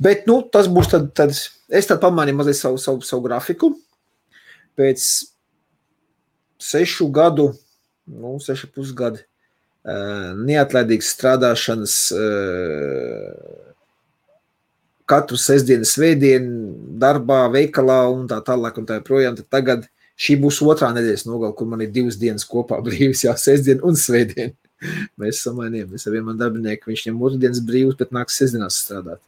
Bet, tas būs tad es tad pamainīju mazliet savu grafiku. Pēc 6 gadu, 6,5 gadu neatlaidīgas strādāšanas katru sestdienu, svētdienu, darbā, veikalā un tā tālāk un tā projām. Tad tagad šī būs 2. nedēļas nogala, kur man ir 2 dienas kopā brīvs, jā, sestdienu un svētdienu. Mēs samainījām. Es ar vienu man darbinieku, viņš ņem 2 dienas brīvs, bet nāks sestdienās strādāt.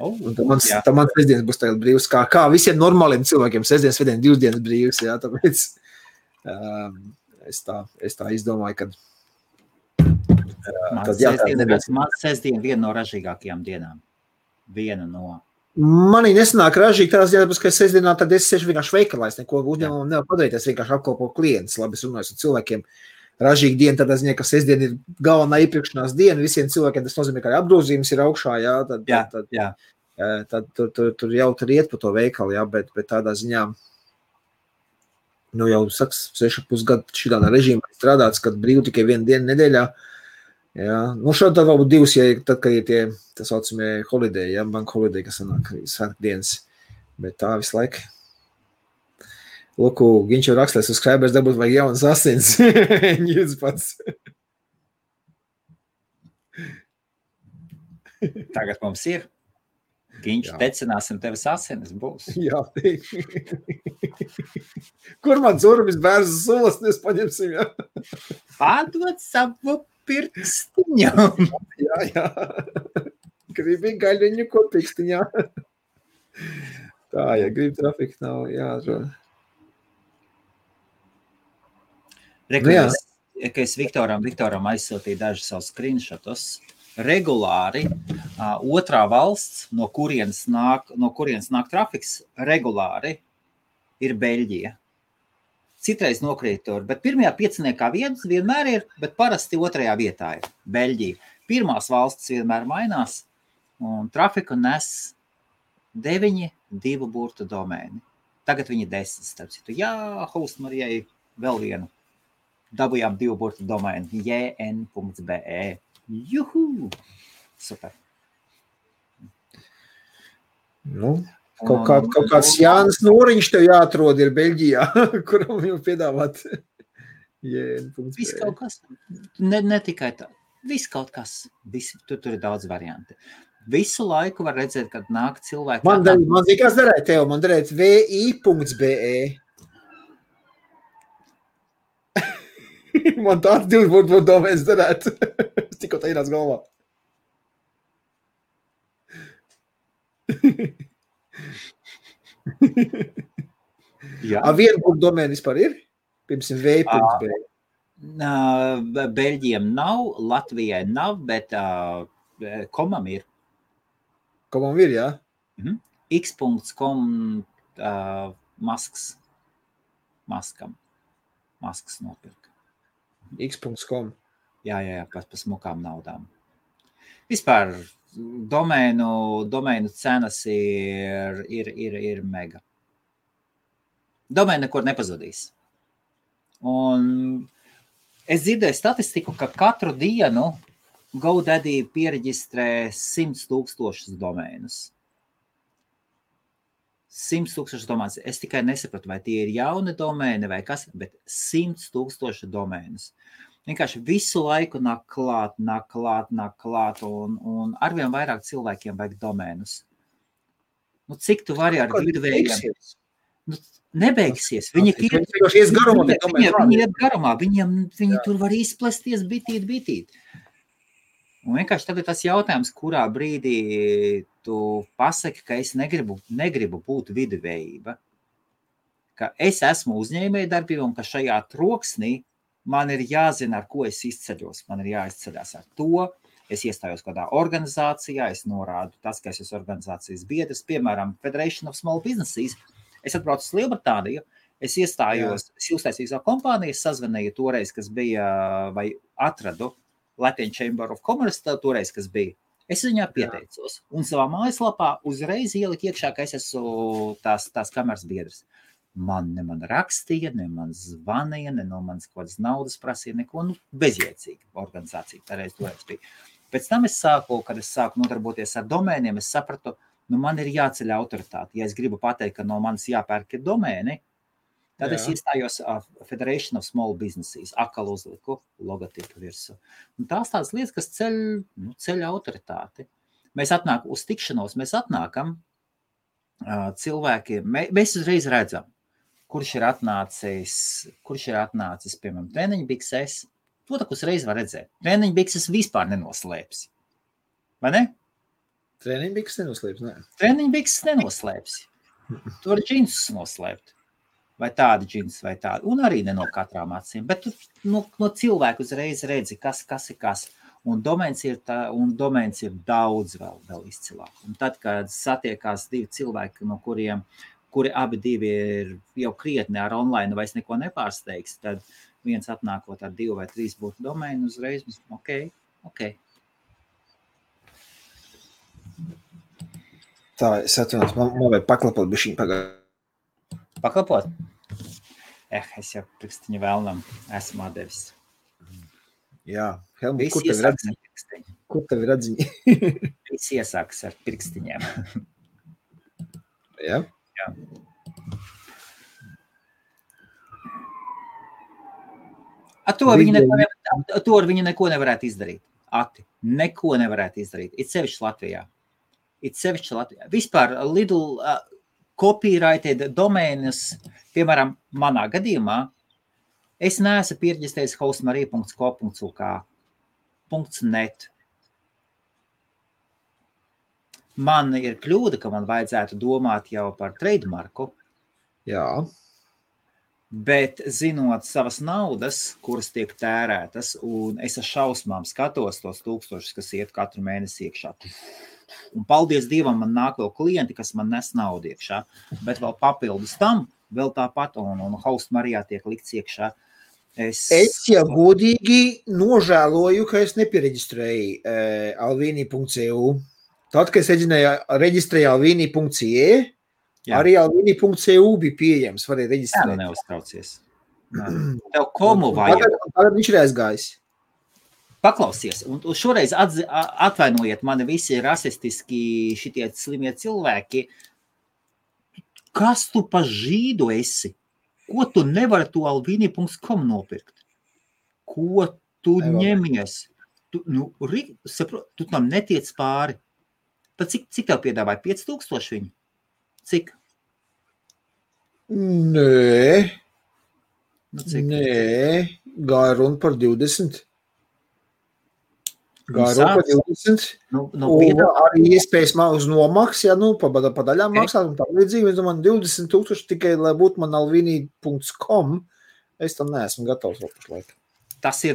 Un tad mans sestdienas būs tagad brīvs, kā visiem normāliem cilvēkiem, sestdienas, svētdien, 2 dienas brīvs, jā, tāpēc es tā izdomāju, kad Man sestdiena viena no ražīgākajām dienām. Viena no. Manī nesanāk ražīgi tās dienas, ka sestdienā tad es sešu vienkārši veikalā, es neko uzņēmumu nevar padarīt, es vienkārši apkalpo klientus, labi, es runāju ar cilvēkiem. Ražīga diena, tad es zinu, ka sestdiena ir galvenā iepirkšanās diena, visiem cilvēkiem tas nozīmē, ka apgrozījums ir augšā, jā, tad tur jau tur iet pa to veikalu, jā, bet tādā ziņā, jau saks, 6,5 gadu šitādā režīmā strādāts, kad brīv tikai 1 dienu nedēļā, jā, šādi tad varbūt 2, ja tad, kad ir tie, tas saucamie holiday, jā, bank holiday, kas sanāk svētdienas, bet tā visu laiku. Lūku, viņš jau rakstēs uz subscribers, dabūt vajag jaunas asins. Ņūdz pats. Tagad mums ir. Viņš tecināsim tevis asinis būs. Jā. Kur man zurvis bērzu sulas, mēs paņemsim, jā? Pārdot savu pirkstiņu. Jā. Gribi gaļiņu ko pirkstiņā. Tā, ja grib trafika nav, jā, ka es Viktoram aizsūtīju dažus savus screenshotus. Regulāri otrā valsts, no kurienes nāk trafiks, regulāri ir Beļģija. citreiz nokrīt tur, bet pirmajā pieciniekā vietas vienmēr ir, bet parasti otrajā vietā ir Beļģija. Pirmās valstis vienmēr mainās, un trafiku nes 9 divu burtu domēni. Tagad viņi 10, starp citu. Jā, Host Marijai vēl vienu. Dabujām divu burtu domēnu. jn.be. Juhu! Super. Nu, kaut kāds Jānis Noriņš tev jāatrod ir Beļģijā, kuram jau piedāvāt jn.be. Viss kaut kas. Ne tikai tā. Viss kaut kas. Tur ir daudz varianti. Visu laiku var redzēt, kad nāk cilvēki. Man zīkās darēt tev, man darēt vi.be. Man tāds divi būtu domēs darēt. Es tikko tā ienāc galvā. Jā. Vienu būtu domēni vispār ir? Piemēram, vi.be. Beļģiem nav, Latvijai nav, bet komam ir. Komam ir, jā? x.com maskas nopirka. x.com. Jā, pa smukām naudām. Vispār domēnu cenas ir mega. Domēna nekur nepazudīs. Un es dzirdēju statistiku, ka katru dienu GoDaddy piereģistrē 100,000 domēnus. 100,000 domēnus. Es tikai nesapratu, vai tie ir jauni domēni vai kas, bet 100,000 domēnus. Vienkārši visu laiku nāk klāt, un arvien vairāk cilvēkiem vajag domēnus. Nu, cik tu vari ar viduvējiem? Nu, nebeigsies. Viņi iet garumā. Viņi tur var izplesties bitīt. Un vienkārši tad ir tas jautājums, kurā brīdī tu pasaki, ka es negribu būt viduvējība. Ka es esmu uzņēmēja darbība un ka šajā troksnī man ir jāzina, ar ko es izceļos. Man ir jāizceļās ar to. Es iestājos kādā organizācijā, es norādu tas, ka es esmu organizācijas biedrs, piemēram, Federation of Small Businesses. Es atbraucu uz Lielbritāniju, es iestājos, es uztaisīju savu kompāniju, es sazvanīju toreiz, kas bija, vai atradu Latvijas Chamber of Commerce, toreiz, kas bija. Es viņā pieteicos un savā mājaslapā uzreiz ieliku iekšā, ka es esmu tās kameras biedrs. Man rakstīja, ne man zvanīja, ne no manas kaut kādas naudas prasīja, neko, bezjēdzīga organizācija. Toreiz bija. Pēc tam kad es sāku nodarboties ar domēniem, es sapratu, man ir jāceļ autoritāte. Ja es gribu pateikt, ka no manis jāpērk ir domēni, tad es iestājos Federation of Small Businesses, atkal uzliku logotipu virsū. Un tās tādas lietas, kas ceļ autoritāti. Mēs uz tikšanos, mēs atnākam cilvēki, mēs uzreiz redzam, kurš ir atnācis, piemēram, treniņbikses. To tak uzreiz var redzēt. Treniņbikses vispār nenoslēpsi. Vai ne? Treniņbikses nenoslēpsi, ne? Treniņbikses nenoslēpsi. Tu vari džinsus noslēpt. Vai tādi džinsi, vai tādi. Un arī ne no katrām acīm. Bet tu no cilvēku uzreiz redzi, kas ir kas. Un domēns ir daudz vēl izcilāk. Un tad, kad satiekās divi cilvēki, no kuri abi divi ir jau krietni ar online vairs neko nepārsteigs, tad viens atnākot ar 2 vai 3 būtu domēnu uzreiz. Ok. Tā, es atvainojos, man vajag paklapot bišķiņ pagājuši. Paklapot? Es jau prikstiņu vēlnam esmu atdevis. Jā, Helmut, kur tev ir atziņi? Viss iesākas ar pirkstiņiem. Jā? Jā. Ar viņi neko nevarētu izdarīt. Neko nevarētu izdarīt. It sevišķi Latvijā. Vispār Lidl copyrighted domēnus, piemēram, manā gadījumā, es neesmu pierģistējis hostmarija.co.uk. .net. Man ir kļūda, ka man vajadzētu domāt jau par trademarku. Jā. Bet zinot savas naudas, kuras tiek tērētas, un es ar šausmām skatos tos 1000, kas iet katru mēnesi iekšā. Un paldies Dievam, man nāk vēl klienti, kas man nes naudu iekšā. Bet vēl papildus tam vēl tāpat, un Host Marijā tiek likts iekšā. Es jau godīgi nožēloju, ka es nepiereģistrēju alvini.eu. Tad, kad es reģistrēju alvini.ie, arī alvini.eu bija pieejams, varēja reģistrēt. Jā, neuztraucies. Tev komu vajag. Tagad viņš ir aizgājis. Paklausies, un šoreiz atvainojiet mani visi rasistiski šitie slimie cilvēki. Kas tu pa žīdu esi? Ko tu nevari to alvini.com nopirkt? Ko tu ņemies? Tu tam netiec pāri. Tad cik tev piedāvāja? 5000 viņi? Cik? Nē, gāja runa par 20. Gāja runa par 20. Un arī iespējas uz nomaks, ja pa daļām maksāt un tā līdzīgi. Es domāju, 20,000 tikai, lai būtu man alvini.com, es tam neesmu gatavs vēl pašlaik. Tas ir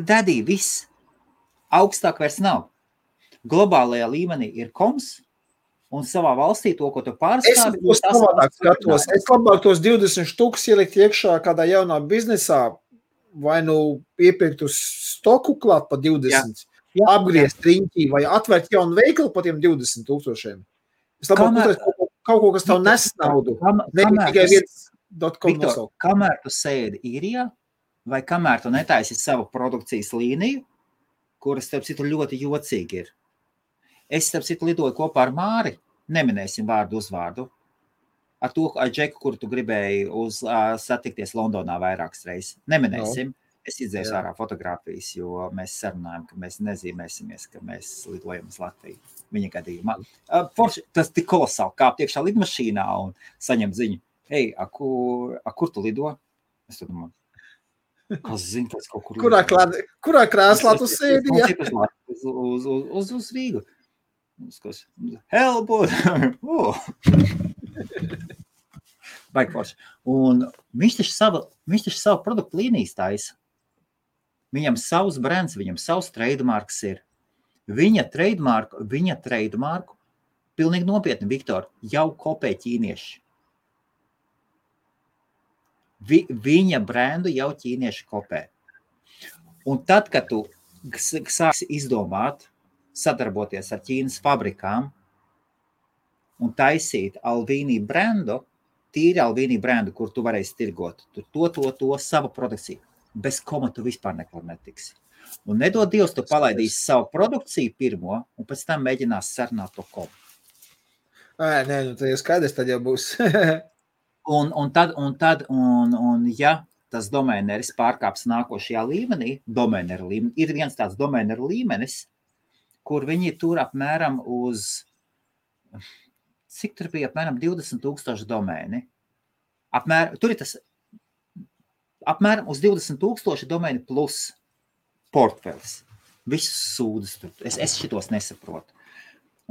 dadī, viss. Augstāk vairs nav. Globālajā līmenī ir koms, un savā valstī to, ko tu pārstāvi... Es savādāk skatos. Es labāk tos 20 štukus ielikt iekšā kādā jaunā biznesā, vai nu iepirkt uz stoku klāt pa 20, apgriezt riņķī, vai atvērt jaunu veikalu pa tiem 20,000. Es labāk uzreiz kaut ko, kas tev nes naudu. Tikai viens.com nosaukt. Kamēr tu sēdi īrijā, vai kamēr tu netaisi savu produkcijas līniju, kuras, starp citu, ļoti jocīgi ir. Es, starp citu, lidoju kopā ar Māri, neminēsim vārdu uzvārdu, ar Džeku, kuru tu gribēji satikties Londonā vairākas reizes. Neminēsim. Es izdzēju ārā fotogrāfijas, jo mēs sarunājam, ka mēs nezīmēsimies, ka mēs lidojam uz Latviju. Viņa gadījumā. Tas tik kolosāli kāpt iekšā lidmašīnā un saņem ziņu. Hei, kur tu lido? Es tad domāju, kas zina, kas kaut kur lido. Kurā krēslā tu sēdi? Uz Rīgu. Helbot! Baigi forši. Un viņš taču savu produktu līnijas taisa. Viņam savs brands, viņam savs trademarks ir. Viņa trademarku, pilnīgi nopietni, Viktor, jau kopē ķīnieši. Viņa brandu jau ķīnieši kopē. Un tad, kad tu sāksi izdomāt, sadarboties ar Ķīnas fabrikām un taisīt Alvini brandu, tīri Alvini brandu, kur tu varēsi tirgot, to savu produkciju. Bez koma tu vispār nekur netiksi. Un nedod Dievs, tu palaidīsi savu produkciju pirmo, un pēc tam mēģinās sarunāt to komu. Nē, tad jau skaidrs, tad jau būs. un ja tas domēneris pārkāps nākošajā līmenī, ir viens tāds domēneru līmenis, kur viņi tur apmēram uz, cik tur bija apmēram 20,000 domēni. Tur ir tas apmēram uz 20,000 domēni plus portfelis. Visus sūdas tur. Es šitos nesaprotu.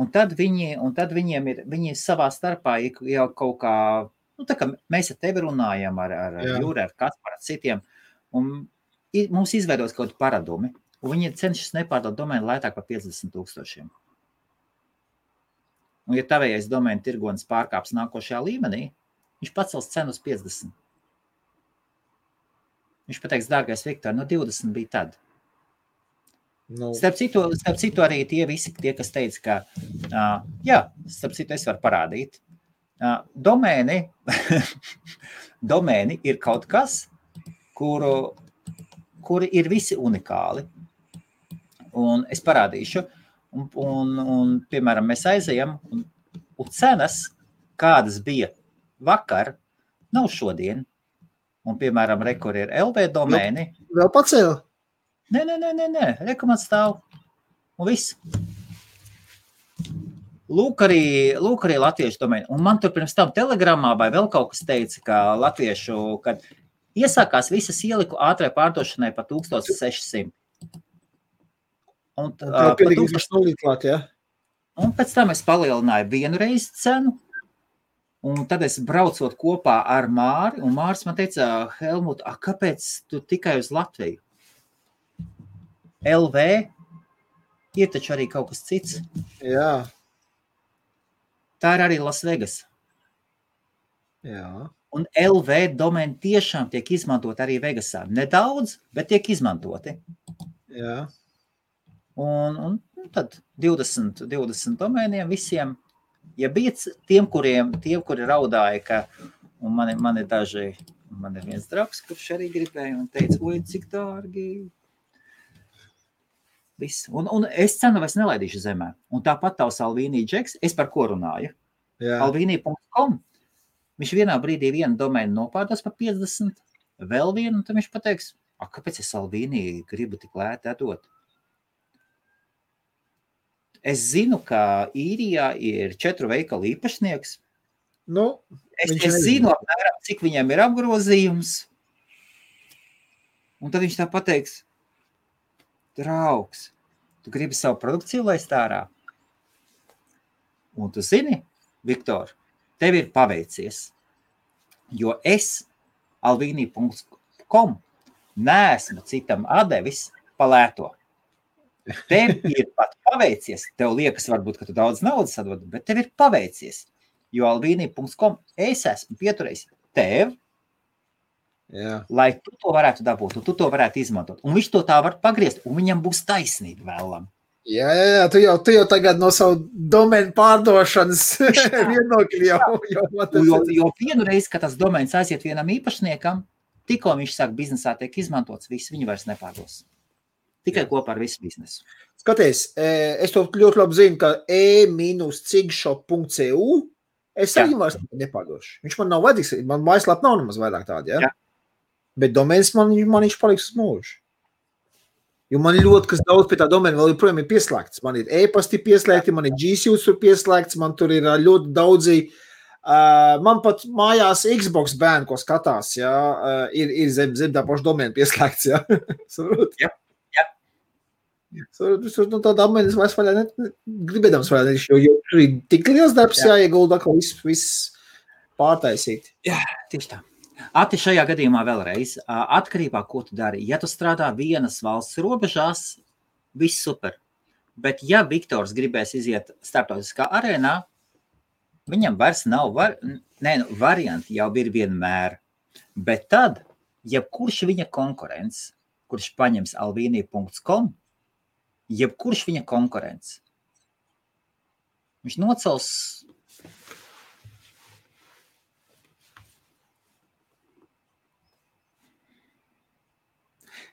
Un tad viņi savā starpā jau kaut kā, tā kā mēs ar tevi runājam, ar Jūri, ar Kasparu, ar citiem, un mums izveidos kaut paradumi. Un viņi cenšas nepārdot domēnu lētāk par 50,000. Un ja tavējais domēnu tirgonis pārkāps nākošajā līmenī, viņš pacels cenu uz 50. Viņš pateiks, dārgais Viktor, 20 bija tad. Starp citu arī tie visi, kas teica, ka, starp citu es varu parādīt. Domēni ir kaut kas, kuri ir visi unikāli. Un es parādīšu, un piemēram, mēs aizejam, un cenas, kādas bija vakar, nav šodien. Un, piemēram, rekur ir LV domēni. Vēl pacēla? Nē, rekomats stāv. Un viss. Lūk arī latviešu domēni. Un man tur pirms tam telegramā vai vēl kaut kas teica, ka latviešu, kad iesākās visas ieliku ātrai pārdošanai pa 1600. Un pēc tam es palielināju vienu reizi cenu, un tad es braucot kopā ar Māri, un Māris man teica, Helmut, kāpēc tu tikai uz Latviju? LV ir taču arī kaut kas cits. Jā. Tā ir arī Las Vegas. Jā. Un LV domēni tiešām tiek izmantot arī Vegasā. Nedaudz, bet tiek izmantoti. Jā. Un tad 20 domēniem visiem, ja bija tiem, kuri raudāja, ka, un man ir daži, man ir viens draugs, kurš arī gribēja un teica, oi, cik dārgi. Viss. Un es cenu vairs nelaidīšu zemē. Un tāpat tavs Alvīnī Džeks, es par ko runāju? Alvīnī.com. Viņš vienā brīdī vienu domēnu nopārdos par 50, vēl vienu, un tad viņš pateiks, kāpēc es Alvīnī gribu tik lēti atdot? Es zinu, ka Īrijā ir 4 veikalu īpašnieks. Nu, es zinu apmēram, cik viņam ir apgrozījums. Un tad viņš tā pateiks, draugs, tu gribi savu produkciju laist ārā? Un tu zini, Viktor, tev ir paveicies, jo es alvīnī.com neesmu citam atdevis palēto. Tev ir pat paveicies, tev liekas varbūt, ka tu daudz naudas atdod, bet tev ir paveicies, jo alvīnī.com es esmu pieturējis tev, lai tu to varētu dabūt, un tu to varētu izmantot. Un viņš to tā var pagriezt, un viņam būs taisnība vēlam. Jā, tu jau tagad no savu domēnu pārdošanas vienokļi jo vienu reizi, kad tas domēns aiziet vienam īpašniekam, tikko viņš sāk biznesā tiek izmantots, viss viņu vairs nepārdos. Tikai kopā ar visu biznesu. Skaties, es to ļoti labi zinu, ka e-cigshop.cu es arī vairs nepārdošu. Viņš man nav vajadzīgs, man mājaslap nav nemaz vairāk tādi, ja? Bet domēns man viņš paliks uz mūžu. Jo man ļoti kas daudz pie tā domēna vēl joprojām ir pieslēgts. Man ir e-pasti pieslēgti, man ir G-Suits tur pieslēgts, man tur ir ļoti daudzi, man pat mājās Xbox bērni, ko skatās, ja, ir zem tā paša domēna pieslēgts, ja. Saprot? Jā. No tā domēna es vairs vaļā gribēdams vaļā, jo tur ir tik liels darbs jāiegulda, ka viss pārtaisīt. Jā, tieši tā. Ati, šajā gadījumā vēlreiz, atkarībā, ko tu dari. Ja tu strādā vienas valsts robežās, viss super. Bet ja Viktors gribēs iziet starptautiskā arēnā, viņam vairs nav varianti, jau ir vienmēr. Bet tad, jebkurš viņa konkurents, kurš paņems alvīnī.com, jebkurš viņa konkurents, viņš nocels.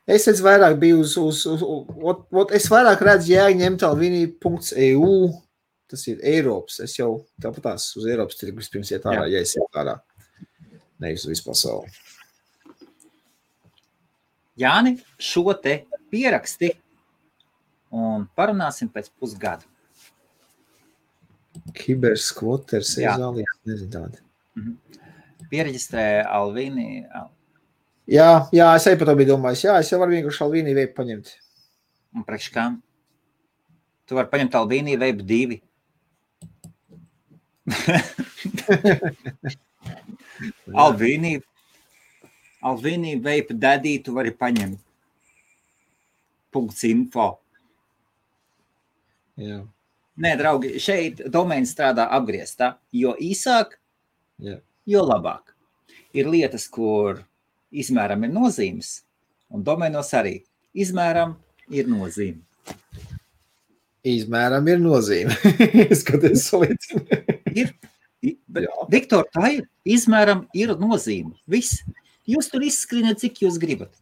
Es vairāk biju es vairāk redzu jēgu ņemt alvīnī.eu, tas ir Eiropas, es jau tāpatās uz Eiropas tirgu vispirms iet ārā, ja es iet ārā, nevis uz visu pasauli. Jāni, šo te pieraksti un parunāsim pēc pusgada. Kiberskvoters, ezālijas, nezinu tādi. Piereģistrē Alvīnī. Jā, es arī par to biju domājis. Jā, es jau varu vienkārši Alvīnī Vape paņemt. Un priekš kā? Tu vari paņemt Alvīnī Vape 2. Alvīnī Vape Daddy tu vari paņemt. .info. Jā. Nē, draugi, šeit domēns strādā apgrieztā. Jo īsāk, jo labāk. Ir lietas, kur izmēram ir nozīmes, un domēnos arī. Izmēram ir nozīme. Izmēram ir nozīme. Skaties, salīdzinu. Viktor, tā ir. Izmēram ir nozīme. Viss. Jūs tur izskrieniet, cik jūs gribat.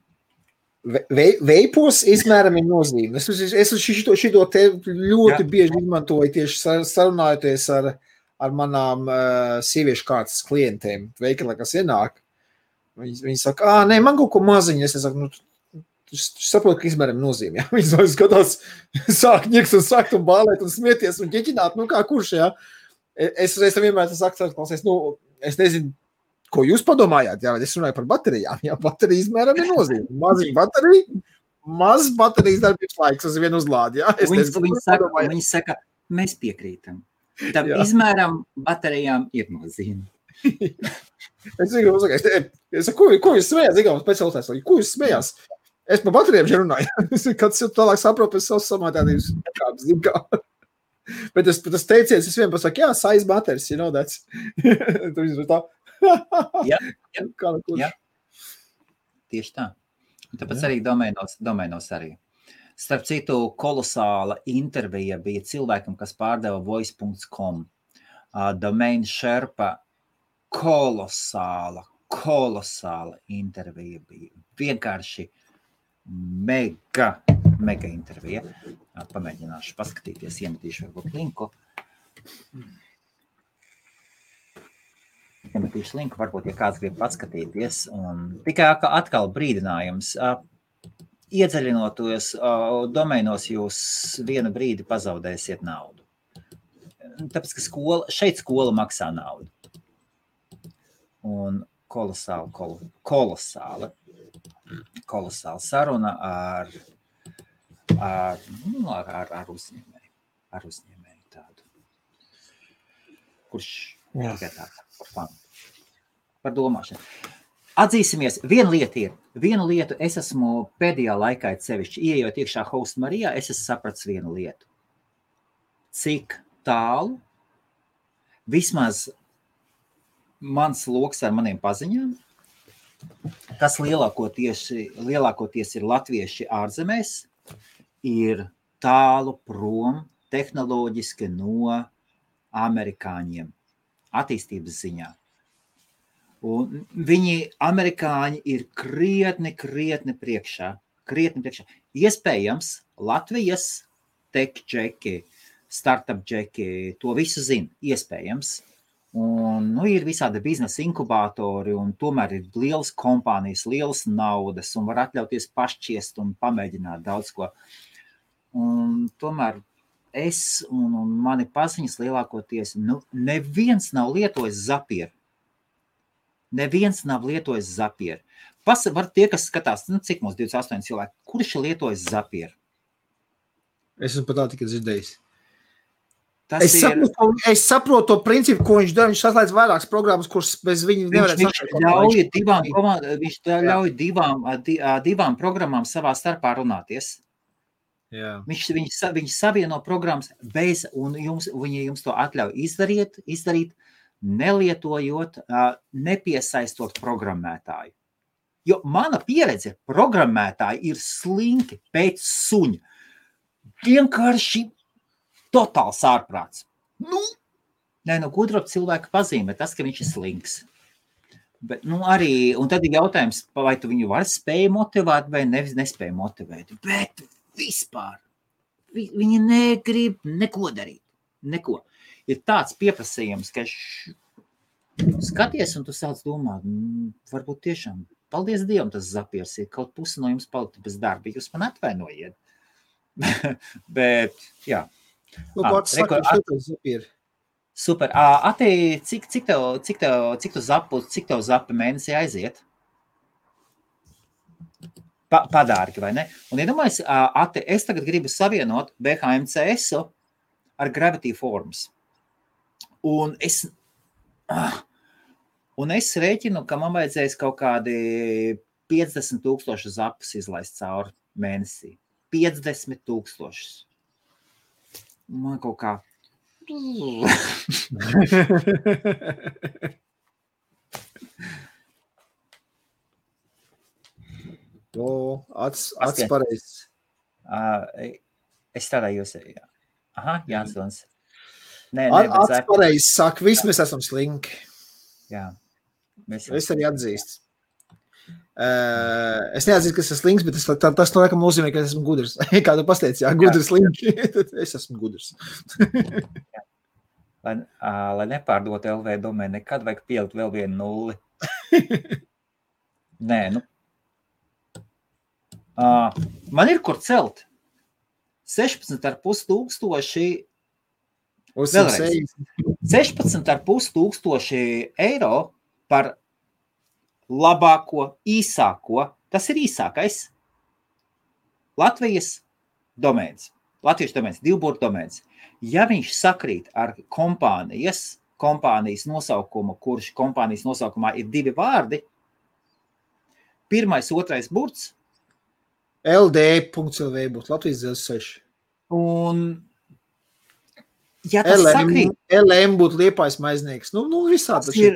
Veipos izmēram ir nozīme. Es šito te ļoti bieži izmantoju tieši sarunājoties ar manām sieviešu kārtas klientiem. Veikalā, kas ienāk. Viņi saka, nē, man kaut ko maziņu. Es saku, tu saproti, ka izmēram nozīme. Ja? Viņi skatās, sāk ņiks un sakt un bālēt un smieties un ķeķināt. Nu, kā kurš, ja? Es vienmēr saku, es nezinu, ko jūs padomājāt. Jā, es runāju par baterijām. Jā, baterija izmēram ir nozīme. Maziņa baterija, maz baterijas darbības laiks uz vienu uzlādi. Jā? Viņi saka, mēs piekrītam. Tam izmēram baterijām ir nozīme. Es saku, ko jūs smējās? Ko jūs smējās? Es par baterijām šeit runāju. Kāds jau tālāk saprot pēc savas samātādības kāpes. Bet tas teiciens, es vienmēr saku, size matters, you know, that's. Jā. Jā. Tieši tā. Un tāpēc arī domēnos arī. Starp citu, kolosāla intervija bija cilvēkam, kas pārdeva voice.com. Domain Sherpa kolosāla intervija bija. Vienkārši mega intervija. Pamēģināšu paskatīties, iemetīšu varbūt linku. Iemetīšu linku, varbūt, ja kāds grib paskatīties. Un tikai atkal brīdinājums. Iedziļinoties domēnos, jūs vienu brīdi pazaudēsiet naudu. Tāpēc, ka šeit skola maksā naudu. Un kolosāla saruna ar uzņēmēju tādu. Kurš tikai tā, par domāšanu. Atzīsimies, vienu lietu es esmu pēdējā laikā sevišķi, ieejot iekšā Host Marijā, es esmu sapratis vienu lietu. Cik tālu, vismaz mans loks ar maniem paziņām, kas lielākoties ir latvieši ārzemēs, ir tālu prom tehnoloģiski no amerikāņiem attīstības ziņā. Un viņi, amerikāņi, ir krietni priekšā. Iespējams, Latvijas tech džeki, startup džeki, to visu zina, iespējams. Un, ir visādi biznesa inkubātori, un tomēr ir lielas kompānijas, lielas naudas, un var atļauties pašķiest un pamēģināt daudz ko. Un tomēr es un mani paziņas lielākoties, neviens nav lietojis Zapier. Var tie, kas skatās, cik mums 28 cilvēki, kurš ir lietojis Zapier? Es esmu pat tā tikai dzirdējis. Es saprotu to principu, ko viņš dara. Viņš saslēdz vairākas programmas, kuras bez viņa nevarētu Viņš ļauj divām programmām savā starpā runāties. Jā. Viņš savieno programmas bez, un viņi jums to atļauj izdarīt, nelietojot, nepiesaistot programmētāju. Jo mana pieredze, programmētāji ir slinki pēc suņa. Vienkārši totāls ārprāts. Gudrot cilvēku pazīme, tas, ka viņš ir slinks. Bet, arī, un tad ir jautājums, vai tu viņu var spēj motivēt vai nespēj motivēt. Bet vispār viņi negrib neko darīt. Neko. Ir tāds pieprasījums, ka skaties un tu sāc domāt, varbūt tiešām, paldies Dievam, tas Zapiers ir, kaut pusi no jums paliktu bez darba, jūs man atvainojiet. Bet, jā. Super. Ati, cik tev zapi mēnesī aiziet? Padārki, vai ne? Un iedomājies, Ati, es tagad gribu savienot BHMCS-u ar Gravity Forms. Un es rēķinu, ka man vajadzēs kaut kādi 50,000 zapus izlaist cauri mēnesī. 50,000. Man kaut kā... Acis pareizs. Es strādāju jūs. Aha, Jānsons. Acis pareizs saka, visi mēs esam slinki. Jā. Es arī atzīstu. Es neatzīstu, ka es esmu slinks, bet tas no laikam nozīmē, ka es esmu gudrs. Kā tu pasteici, gudrs slinki, tad es esmu gudrs. Lai nepārdot LV domēnu, nekad vajag pielikt vēl vienu nulli. Nē, man ir kur celt. 16,500 vēlreiz. 16,500 eiro par labāko, īsāko, tas ir īsākais Latvijas domēns. Latviešu domēns, divburtu domēns. Ja viņš sakrīt ar kompānijas nosaukumu, kurš kompānijas nosaukumā ir 2 vārdi, 1, 2 burts, LD.LV būtu Latvijas Dzelzs 6. Un Ja tas sakrīt, LM būtu Liepājas maiznieks. Nu visādi tas ir,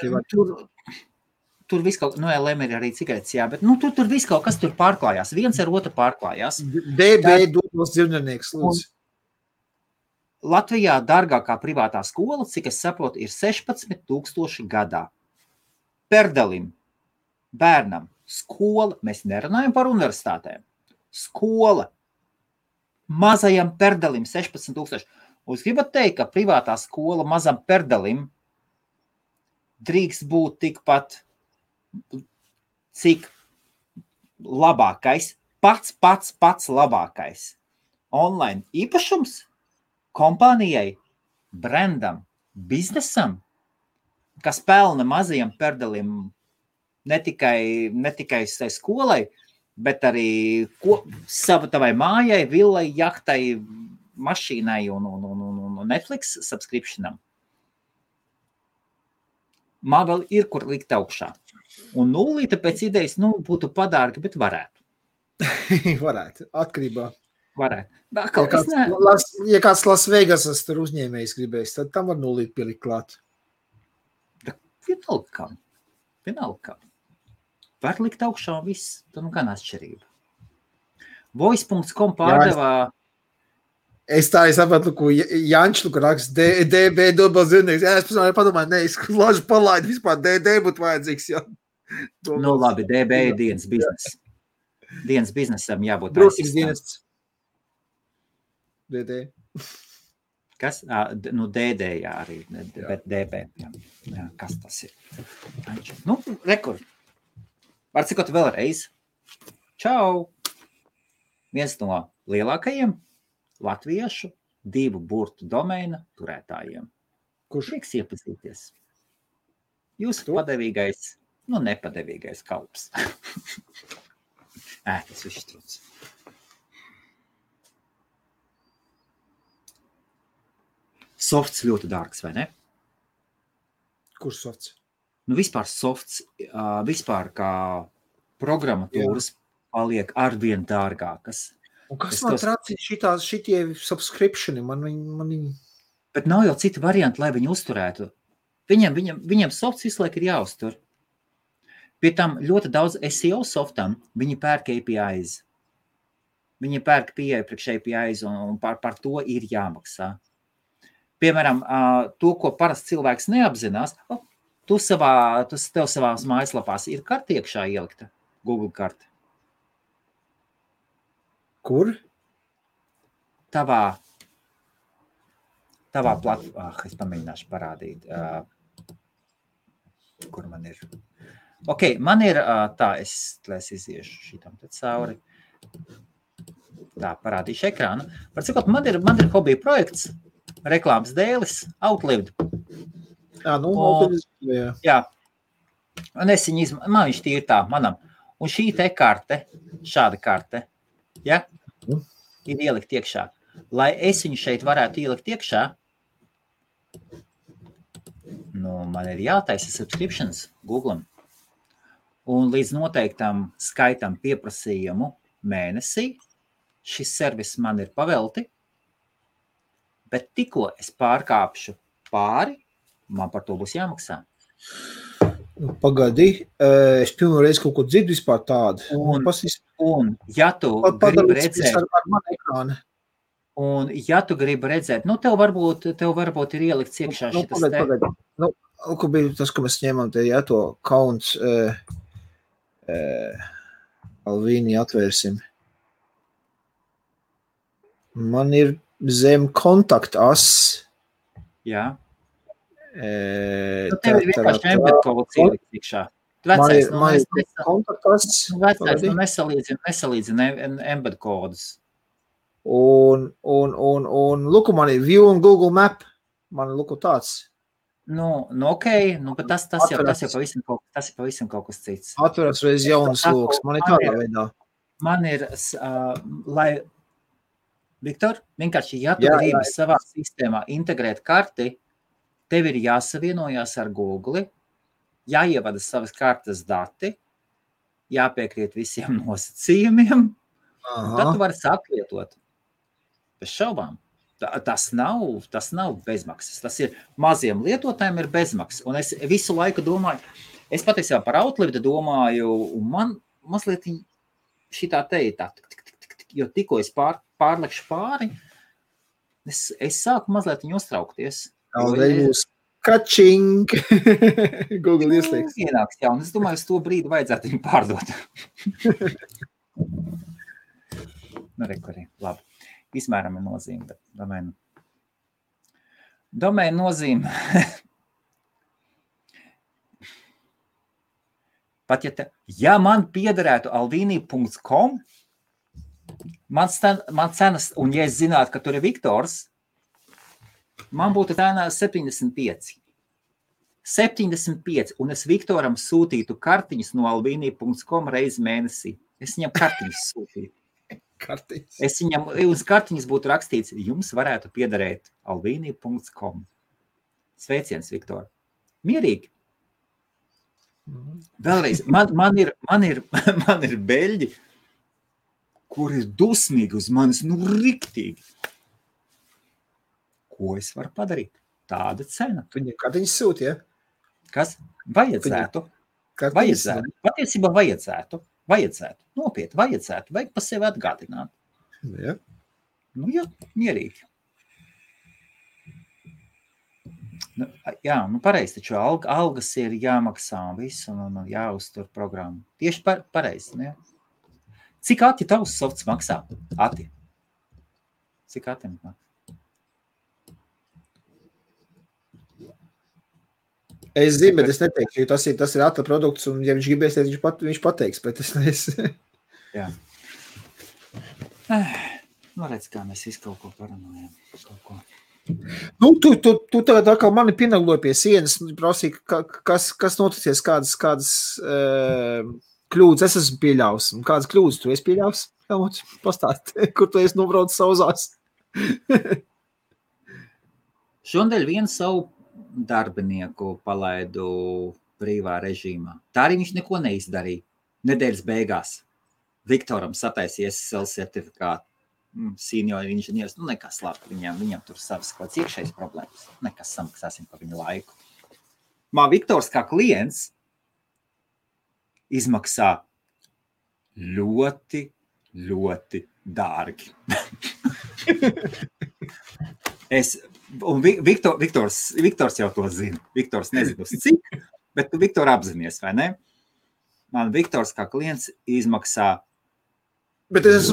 tur viss kaut, LM ir arī cigaretes, jā, bet tur viss kaut kas tur pārklājās. Viens ar otru pārklājās. DB dotos dzīvnieks, lūdzu. Latvijā dārgākā privātā skola, cik es saprotu, ir 16,000 gadā. Perdelim, bērnam, skola, mēs nerunājam par universitātēm, skola, mazajam perdelim 16,000. Jūs gribat teikt, ka privātā skola mazam perdelim drīkst būt tikpat, cik labākais, pats labākais online īpašums kompānijai, brandam, biznesam, kas pelna mazajam perdelim ne tikai skolai, bet arī tavai mājai, villai, jahtai, mašīnai un Netflix subscriptionam. Man vēl ir, kur likt augšā. Un nulīte pēc idejas, būtu padārga, bet varētu. Varētu, atkarībā. Varētu. Ja kāds Las Vegasas tur uzņēmējs gribēs, tad tam var nulīt pielikt klāt. Vienalga kam. Var likt augšā un viss, tad gan atšķirība. Voice.com pārdevā. Es sapratu, ko Jančs raksta, DB dobas zinnieks. Jā, es padomāju, es lažu palaidu, vispār DD būtu vajadzīgs. Jā. Labi, DB ir dienas biznesa. Dienas biznesam jābūt Brūkins dienas. DD. Kas? DD, jā, arī, bet DB. Jā, kas tas ir? Rekord. Var cikot vēlreiz. Čau! Viens no lielākajiem latviešu 2 burtu domeina turētājiem. Kurš? Prieks iepazīties. Jūsu padevīgais, nepadevīgais kalps. Tas viss trūc. Softs ļoti dārgs, vai ne? Kurš softs? Vispār softs, vispār kā programmatūras paliek arvien dārgākas. Un kas man trācīja šitie subscriptioni? Bet nav jau citi varianti, lai viņi uzturētu. Viņam softs visu laiku ir jāuztur. Pie tam ļoti daudz SEO softam viņi pērk APIs. Viņi pērk pieeja priekš APIs un par to ir jāmaksā. Piemēram, to, ko parasti cilvēks neapzinās, tev savās mājaslapās ir karte iekšā ielikta, Google karte. Kur? Tavā es pamēģināšu parādīt, kur man ir. Ok, man ir tā, es iziešu šitam te cauri. Tā, parādīšu ekrānu. Par cikot, man ir hobija projekts, reklāmas dēlis, Outlived. Jā. Un es viņu man viņš tīri tā, manam. Un šī te karte, šāda karte, ja, ir ielikt iekšā. Lai es viņu šeit varētu ielikt iekšā, man ir jātaisa subscriptions Google'am. Un līdz noteiktam skaitam pieprasījumu mēnesī šis servis man ir pavelti, bet tikko es pārkāpšu pāri, man par to būs jāmaksā. Pagadi, es pilnu reizi kaut ko dzirdu vispār tādu. Un ja tu gribi redzēt... ar manu ekrānu. Un ja tu gribi redzēt, tev varbūt ir ielikts iekšā šitas te... Pagadi. Ko bija tas, ko mēs ņemam te, ja to kaunts Alvīni atvērsim. Man ir zem kontaktas. Jā. Tev ir vienkārši embed kods ielikt iekšā. Vecais, nesalīdzina embed kodus. Un luku man ir View un Google Map. Man luku tāds. Ok, bet tas jau pavisam kaut kas cits. Atveras reiz jaunas lokas. Man ir tādā veidā. Man ir, Viktor, vienkārši, ja tu gribi savā sistēmā integrēt karti, tev ir jāsavienojās ar Google, jāievada savas kartes dati, jāpiekrīt visiem nosacījumiem, tad tu vari sākt lietot. Bez šaubām. Tas nav bezmaksas. Tas ir maziem lietotājiem ir bezmaksas. Un es visu laiku domāju, es patiesībā par Outlivdu domāju, un man mazliet šitā tā, jo tikko es pārlekšu pāri, es sāku mazliet viņu uztraukties. Kačing! Google ieslēgs. Ienāks, jā, un es domāju, uz to brīdi vajadzētu viņu pārdot. Rekurī, labi. Izmēram ir nozīme, bet domēnu nozīme. Pat ja man piederētu alvini.com, man cenas, un ja es zinātu, ka tur ir Viktors, man būtu cena 75. 75, un es Viktoram sūtītu kartiņas no alvini.com reizi mēnesī. Es viņam kartiņas sūtītu. Es viņam uz kartiņas būtu rakstīts, jums varētu piederēt alvini.com. Sveiciens, Viktor. Mierīgi. Vēlreiz, man ir beļģi, kur ir dusmīgi uz manis, riktīgi. Ko es varu padarīt? Tāda cena. Viņa kartiņas sūti, ja? Kas? Vajadzētu. Patiesībā vajadzētu. Nopietni, vajadzētu. Vajag pa sevi atgādināt. Ja. Jā, mierīgi. Jā, pareizi, taču algas ir jāmaksā un visu, un jāuztur programmu. Tieši pareizi, ne? Cik Ati tavs softs maksā? Ati? Cik Ati maksā? Es zinu, bet es neteikšu, jo tas ir Ata produkts, un ja viņš gribēs, viņš pateiks, bet es neesmu. Jā. Redz, kā mēs visu kaut ko parunājam. Tu tagad atkal mani pienagloji pie sienas, prasīja, kas noticies, kādas kļūdas es esmu pieļaus, un kādas kļūdas tu esi pieļaus? Pastāst, kur tu esi nobraucis sauzās? Šodien vienu savu darbinieku palaidu brīvā režīmā. Tā arī viņš neko neizdarīja. Nedēļas beigās Viktoram sataisīja SSL certifikātu. Senior inženieris, nekas labi, viņam tur savas kaut kāds iekšējas problēmas. Nekas, samaksāsim par viņu laiku. Man Viktors kā klients izmaksā ļoti, ļoti dārgi. Un Viktors jau to zina. Viktors nezina uz cik, bet tu Viktor apzinies, vai ne? Man Viktors kā klients izmaksā. Bet es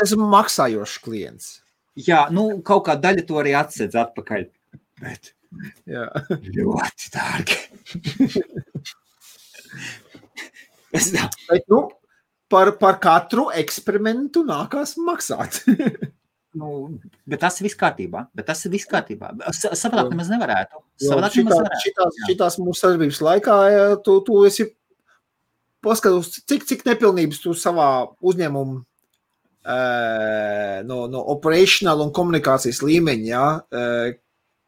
esmu maksājošs klients. Jā, kaut kā daļa to arī atsedz atpakaļ. Bet jā. Ļoti dārgi. Bet, par katru eksperimentu nākās maksāt. Bet tas ir viss kārtībā. Savādāk nemaz nevarētu. Šitās mūsu sadarbības laikā tu esi paskatos, cik nepilnības tu savā uzņēmumu no operational un komunikācijas līmeņa, ja?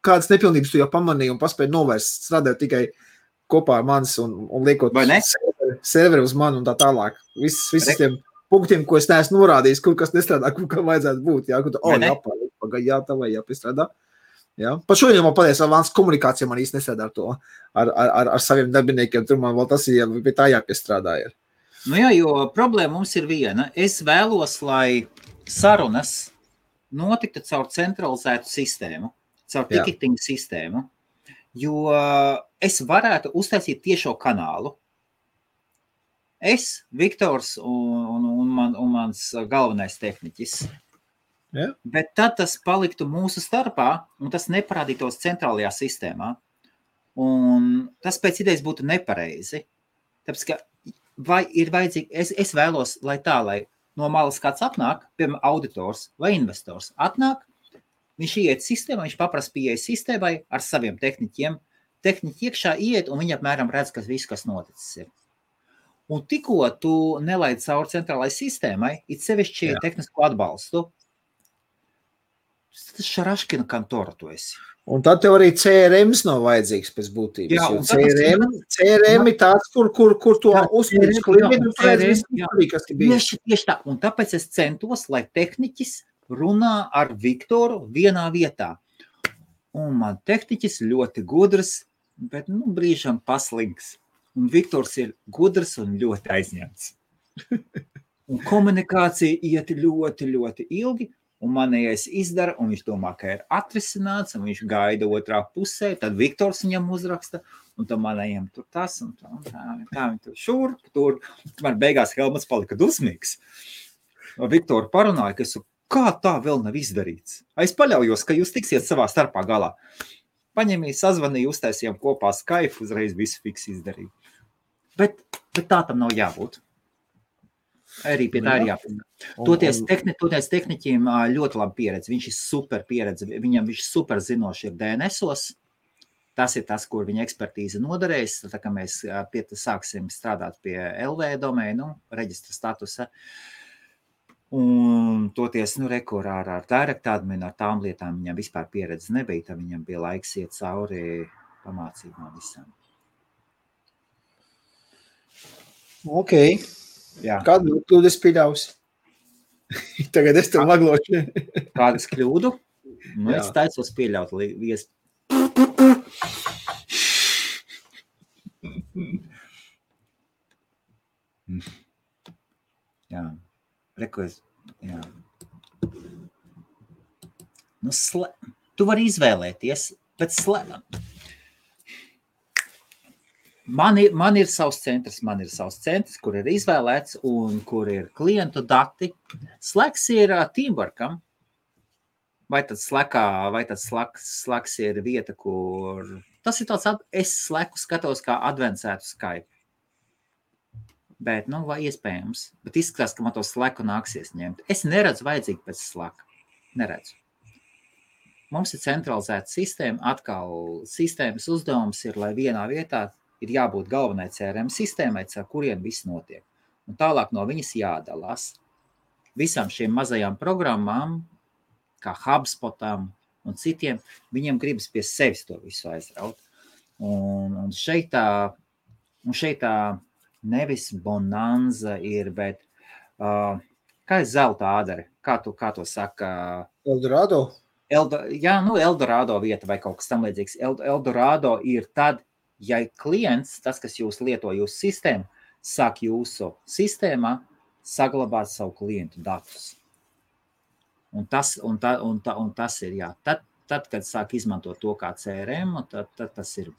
Kādas nepilnības tu jau pamanīji un paspēji novērst, strādāt tikai kopā ar manis un liekot serveri uz mani un tā tālāk. Visi tiem punktiem, ko es neesmu norādījis, kur kas nestrādā, kur kā vajadzētu būt. Jā, tā vai jāpiestrādā. Jā. Pat šodien man pateicis, Vāns komunikācija man īsti nestrādā ar to, ar saviem darbiniekiem, tur man vēl tas ir, pie tā jāpiestrādā ir. Jā, jo problēma mums ir viena. Es vēlos, lai sarunas notiktu caur centralizētu sistēmu, caur ticketing sistēmu, jo es varētu uztaisīt tiešo kanālu. Es, Viktors un mans galvenais tehniķis. Ja. Bet tad tas paliktu mūsu starpā, un tas neparādītos centrālajā sistēmā. Un tas pēc idejas būtu nepareizi. Tāpēc, ka vai ir vajadzīgi, es vēlos, lai no malas kāds atnāk, piemēram, auditors vai investors atnāk, viņš iet sistēmā, viņš paprasa pieeja sistēmai ar saviem tehniķiem. Tehniķi iekšā iet, un viņi apmēram redz, kas noticis ir. Un tikko tu nelaid cauri centrālai sistēmai, it sevišķi tehnisko atbalstu, tas šaraškina kantora tu esi. Un tad tev arī CRMs nav vajadzīgs pēc būtības. Jā, CRM ir tāds, kur tu uzspīdzi klientu, un tu redz visu, kas ir bijis. Tieši tā. Un tāpēc es centos, lai tehniķis runā ar Viktoru vienā vietā. Un man tehniķis ļoti gudrs, bet brīžam paslinks. Un Viktors ir gudrs un ļoti aizņemts. Un komunikācija iet ļoti, ļoti ilgi, un manējais izdara, un viņš domā, ka ir atrisināts, un viņš gaida otrā pusē, tad Viktors viņam uzraksta, un tad manējiem tur tas, un tā viņi tur šurp, tur. Man beigās Helmuts palika dusmīgs. Viktoru parunāja, ka kā tā vēl nav izdarīts? Es paļaujos, ka jūs tiksiet savā starpā galā. Paņemīja, sazvanīja, uztaisījām kopā Skype, uzreiz visu fiks izdarīja. Bet tā tam nav jābūt. Arī pie tā ir jābūt. Toties tehniķiem ļoti labi pieredze. Viņš ir super pieredze. Viņš super zinoši ir DNS-os. Tas ir tas, kur viņa ekspertīze noderēs. Tā kā mēs sāksim strādāt pie LV domēnu, reģistra statusa. Un toties, rekurā ar direct adminu, ar tām lietām viņam vispār pieredze nebija, tad viņam bija laiks iet cauri pamācībām visām. Ok. Jā. Kādu kļūdu es pieļausi? Tagad es tev maglošu. Kādas kļūdu? Es taicos pieļaut Jā. Rekojas, jā. Tu vari izvēlēties, bet man ir savs centrs, kur ir izvēlēts un kur ir klientu dati. Slacks ir teamworkam. Vai tad Slacks ir vieta, kur... Tas ir tāds, es Slacku skatos kā advancētu Skype. Bet, vai iespējams. Bet izskatās, ka man to Slacku nāksies ņemt. Es neredzu vajadzīgi pēc Slacka. Neredzu. Mums ir centralizēta sistēma. Atkal sistēmas uzdevums ir, lai vienā vietā ir jābūt galvenai CRM sistēmai, ar kuriem viss notiek. Un tālāk no viņas jādalās. Visām šiem mazajām programmām, kā HubSpotam un citiem, viņiem gribas pie sevis to visu aizraut. Un šeit tā nevis bonanza ir, bet kā ir zelta ādere? Kā to saka? Eldorado? Eldorado vieta vai kaut kas tam līdzīgs. Eldorado ir tad, ja klients, tas, kas jūs lieto jūsu sistēmu, sāk jūsu sistēmā saglabāt savu klientu datus. Un tas ir, jā. Tad, kad sāk izmantot to kā CRM, tad tas ir...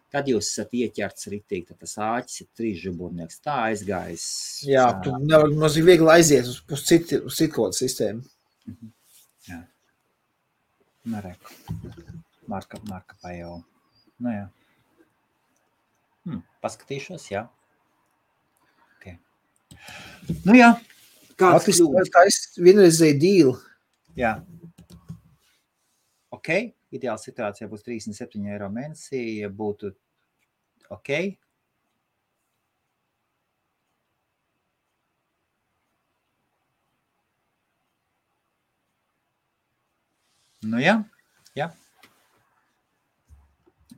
Tad jūs esat ieķerts ritīgi, tad tas āķis ir 3 žuburnieks. Tā aizgājis. Jā, tu nevar mazīgi viegli aiziet uz citu kodu sistēmu. Jā. Nereku. Marka pajau. Jā. Paskatīšos, jā. Okay. Jā. Kāds kļūdas? Tā ir vienreizēja dīla. Jā. Ok. Ideāla situācijā būs 37 eiro mēnesī, ja būtu ok. Jā.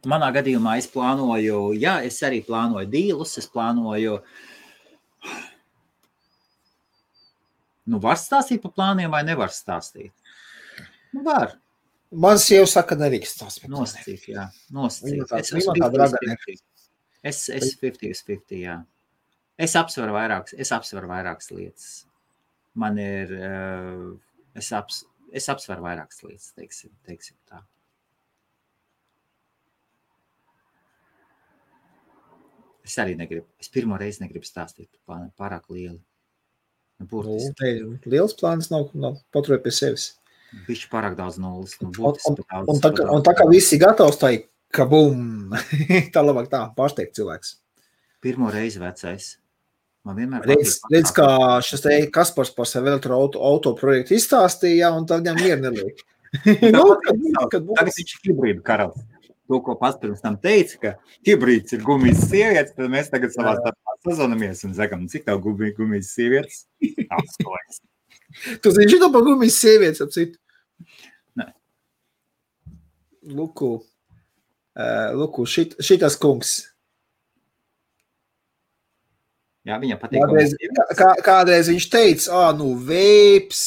Manā gadījumā es plānoju, es arī plānoju dīlus, es plānoju, var stāstīt par plāniem vai nevar stāstīt? Var. Man sieva saka, nevīks tās. Nosacīt, jā. Es 50/50, jā. Es apsveru vairākas lietas. Man ir, es apsveru vairākas lietas, teiksim tā. Es arī negribu, es pirmo reizi negribu stāstīt par plāniem, pārāk lieli. Liels plāns nav paturēt pie sevis. Bišķi pārāk daudz nulles. Un tā kā visi gatavs, tā ir kabum. Tā labāk tā, pārsteigt cilvēks. Pirmo reizi vecais. Man vienmēr redz, kā šis te Kaspars par sevi elektroauto projektu izstāstīja, un tad viņam mieru neliek. Tagad viņš ir hibrīdu karalis. To, ko pats pirms tam teica, ka hibrīds ir gumijas sievietes, tad mēs tagad savā starpā sazvanamies un sakam, cik tev gumijas sievietes? Apskojas. Tu zini šito par gumijas sievietes, ap citu? Nē. Luku, šitas kungs. Jā, viņam patīk. Kādreiz viņš teica, veips,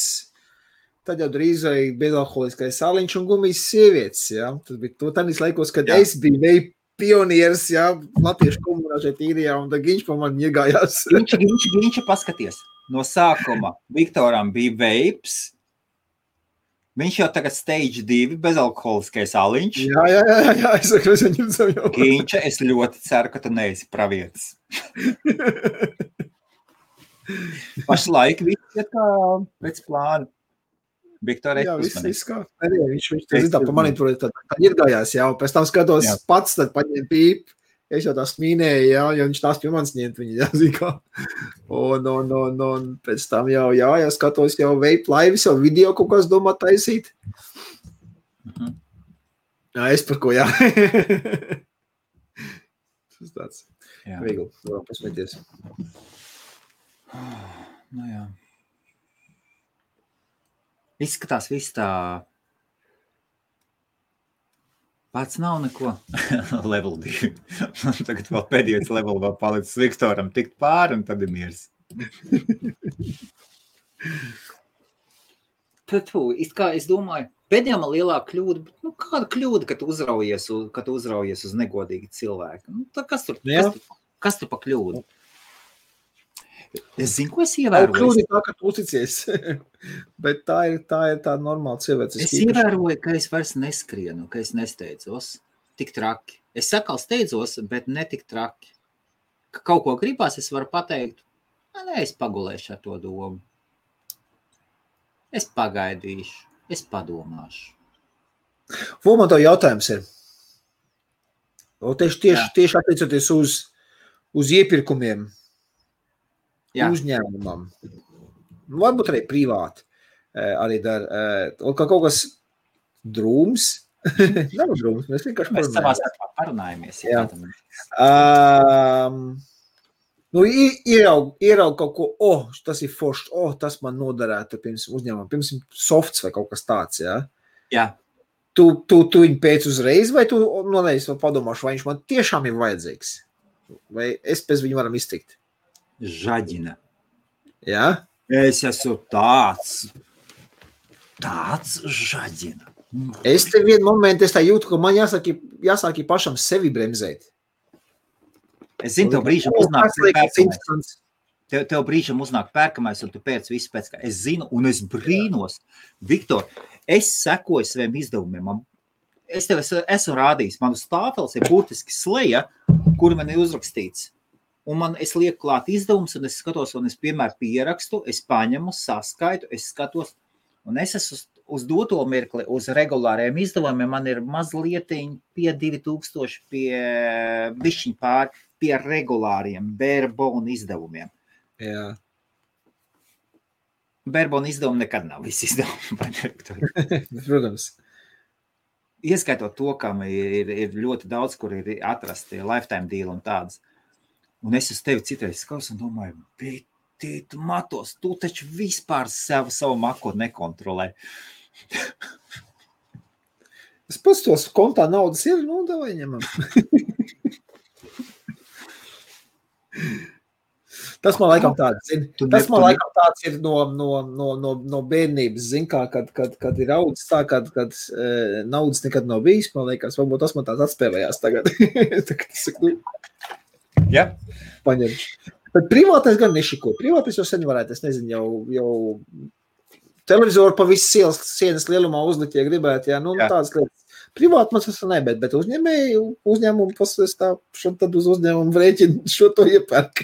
tad jau drīz vai bezalkoholiskais sāliņš un gumijas sievietes, jā. Tas bija to tādīs laikos, kad Jā. es biju veip pionieris, jā, latviešu komunā šeit īrijā, un tad Giņš pa mani iegājās. Giņš, paskaties, no sākuma Viktoram bija veips, viņš jau tagad stage 2 bezalkoholiskais aliņš. Jā, es saku, es viņam savu jau. Giņš, es ļoti ceru, ka tu neesi pravietis. Pašlaik viss ir kā pēc plāna. Viktor, jā, viss kā. Arī, viņš tā pa mani tur tad iegājās, jā, un pēc tam skatos pats, tad paņem pīp. Es jau tā smīnēju, jā, jo viņš tās pie manis ņemt viņa, jā, zikā. Un pēc tam jau skatos jau vape laivis, jau video kaut kas domā taisīt. Jā, es par ko, jā. Tas tāds viegli, varam pasmēties. Nu jā. Izskatās viss tā. Pats nav neko. Level 2. Tagad vēl pēdējais level vēl palicis Viktoram tikt pāri un tad ir miers. Es domāju, pēdējā man lielā kļūda, bet kāda kļūda, kad tu uzraujies uz negodīgu cilvēku? Kas tur pa kļūdu? Es zinu, ko es ievēroju. Kļūdi tā, ka tu uzticies. Bet tā ir tā normāla cilvēks. Es ievēroju, ka es vairs neskrienu, ka es nesteidzos tik traki. Es sakal steidzos, bet ne tik traki. Ka kaut ko gribās, es varu pateikt, nē, es pagulēšu ar to domu. Es pagaidīšu, es padomāšu. Man to jautājums ir. Tieši attiecoties uz iepirkumiem. Jā. Uzņēmumam. Varbūt arī privāti. Arī kaut kas drūms. Nav drūms, mēs vienkārši mēs savā starpā parunājamies. Ieraug kaut ko, tas ir foršs, tas man noderētu pirms uzņēmumam, pirms softs vai kaut kas tāds, jā? Jā. Tu viņu pēc uzreiz, vai tu padomāšu, vai viņš man tiešām ir vajadzīgs? Vai es pēc viņu varam iztikt? Žaģina. Jā? Es esmu tāds žaģina. Es te vienu momentu tā jūtu, ka man jāsāk pašam sevi bremzēt. Es zinu, tev brīžam uznāk pērkamais. Tev brīžam uznāk pērkamais, un tu pēc visu pēc kā. Es zinu, un es brīnos. Viktor, es sekoju saviem izdevumiem. Es tev esmu rādījis. Man uz tāfeles ir burtiski sleja, kur man ir uzrakstīts. Un es lieku klāt izdevums, un es skatos, un es piemēram pierakstu, es paņemu, saskaitu, es skatos, un es esmu uz doto mirkli, uz regulāriem izdevumiem, man ir mazlietiņi pie 2000, pie bišķiņ pāri, pie regulāriem Barebone izdevumiem. Jā. Barebone izdevumi nekad nav visi izdevumi. Protams. Ieskaitot to, kam ir ļoti daudz, kur ir atrasti lifetime deal un tādas. Un es uz tevi citreiz skatos un domāju, bet tu matos, tu taču vispār savu makotu nekontrolē. Es pats tos kontā naudas ir, davai ņemam. Tas man laikam tāds ir. Tas man laikam tāds ir no bērnības, zin kā, kad ir audzis tā, kad naudas nekad nav bijis, man liekas, varbūt tas man tāds atspēlējās tagad. Tagad es saku, Jā. Paņemšu. Bet privātais gan nešiko. Privātais jau sen varētu, es nezinu, jau televizoru pa visu sienas lielumā uzlikt, ja gribētu, jā, tādas lietas. Privāti man tas nebēt, bet uzņēmumu pasvēs tā, tad uz uzņēmumu rēķinu šo to iepērk.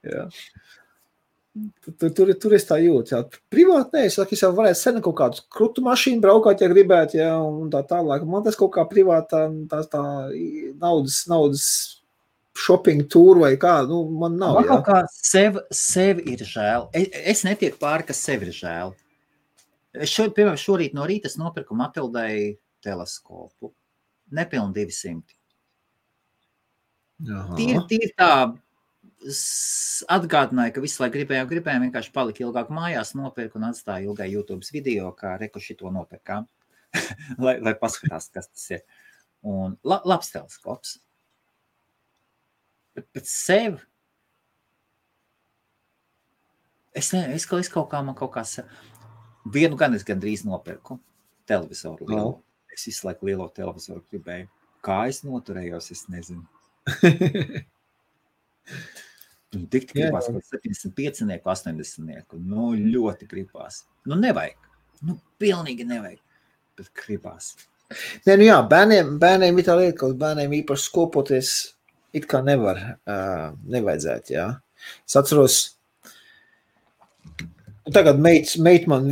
Jā. Tur es tā jūtu, jā. Privāti es jau varētu sen kaut kādu krutu mašīnu braukāt, ja gribētu, jā, un tā tālāk. Man tas kaut kā privātā tā naudas shopping tour vai kā, man nav, jā. Man kaut kā sev ir žēl. Es netieku pāri, kas sev ir žēl. Piemēram, šorīt no rīta es nopirku Matildai teleskopu. Nepilni 200. Tīri tā atgādināja, ka visu laiku gribējām vienkārši palika ilgāk mājās, nopirku un atstāju ilgai YouTube video, kā reku šito nopirkām, lai paskatās, kas tas ir. Un labs teleskops. Bet sev es kaut kā Vienu gan es gandrīz nopirku televizoru lielu. No. Es visu laiku lielo televizoru gribēju. Kā es noturējos, es nezinu. Tik gribās kaut 75, 80. Nu, ļoti gribās. Nu, nevajag. Nu, pilnīgi nevajag. Bet gribās. Nē, nu jā, bērniem ir tā lieta, ka bērniem īpaši skopoties it kā nevajadzētu, jā. Es atceros, tagad meit man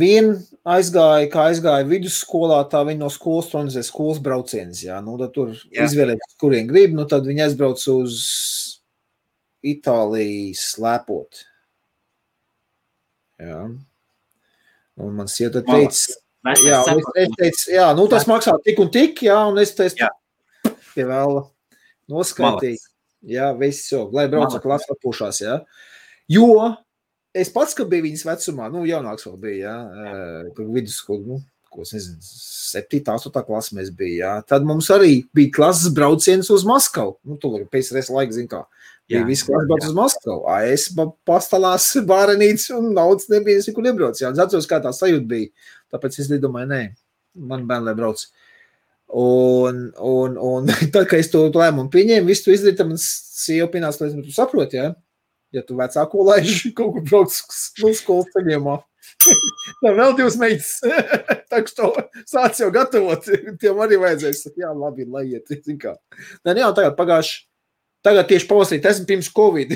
aizgāja vidusskolā, tā viņa no skolas organizē skolas brauciens, jā. Nu, tad tur izvēlēt, kurien grib, nu, tad viņa aizbrauc uz Itāliju slēpot. Jā. Un man sieta teica, jā, un es teicu, jā, nu, tas maksā tik un tik, jā, un es teicu, pie vēla noskaitīt. Jā, viss jau, lai brauca klasa atpūšās, jā. Jo es pats, ka biju viņas vecumā, nu, jaunāks vēl bija, jā, vidusskolu, nu, ko es nezinu, 7. 8. klasa mēs bija, jā. Tad mums arī bija klases brauciens uz Maskavu. Nu, tu pēc reiz laika, zin kā, bija viss klases brauc uz Maskavu. Es pastalās bārenīts un naudas nebija, es nekur nebrauc, jā. Es atceros, kā tā sajūta bija. Tāpēc es domāju, nē, man bērni, lai brauc. Un tad, kad es to lēmumu pieņēmu, visu to izdarīju, tad man sieva pienāca, lai tu saproti, jā? Ja tu vecāko laiži kaut kur brauc no skolas ceļiemā. Tā vēl 2 meitas. Tā, ka to sāc jau gatavot, tiem arī vajadzēs. Jā, labi, lai iet, zin kā. Nē, jā, tagad tieši pavasarī, esmu pirms Covid.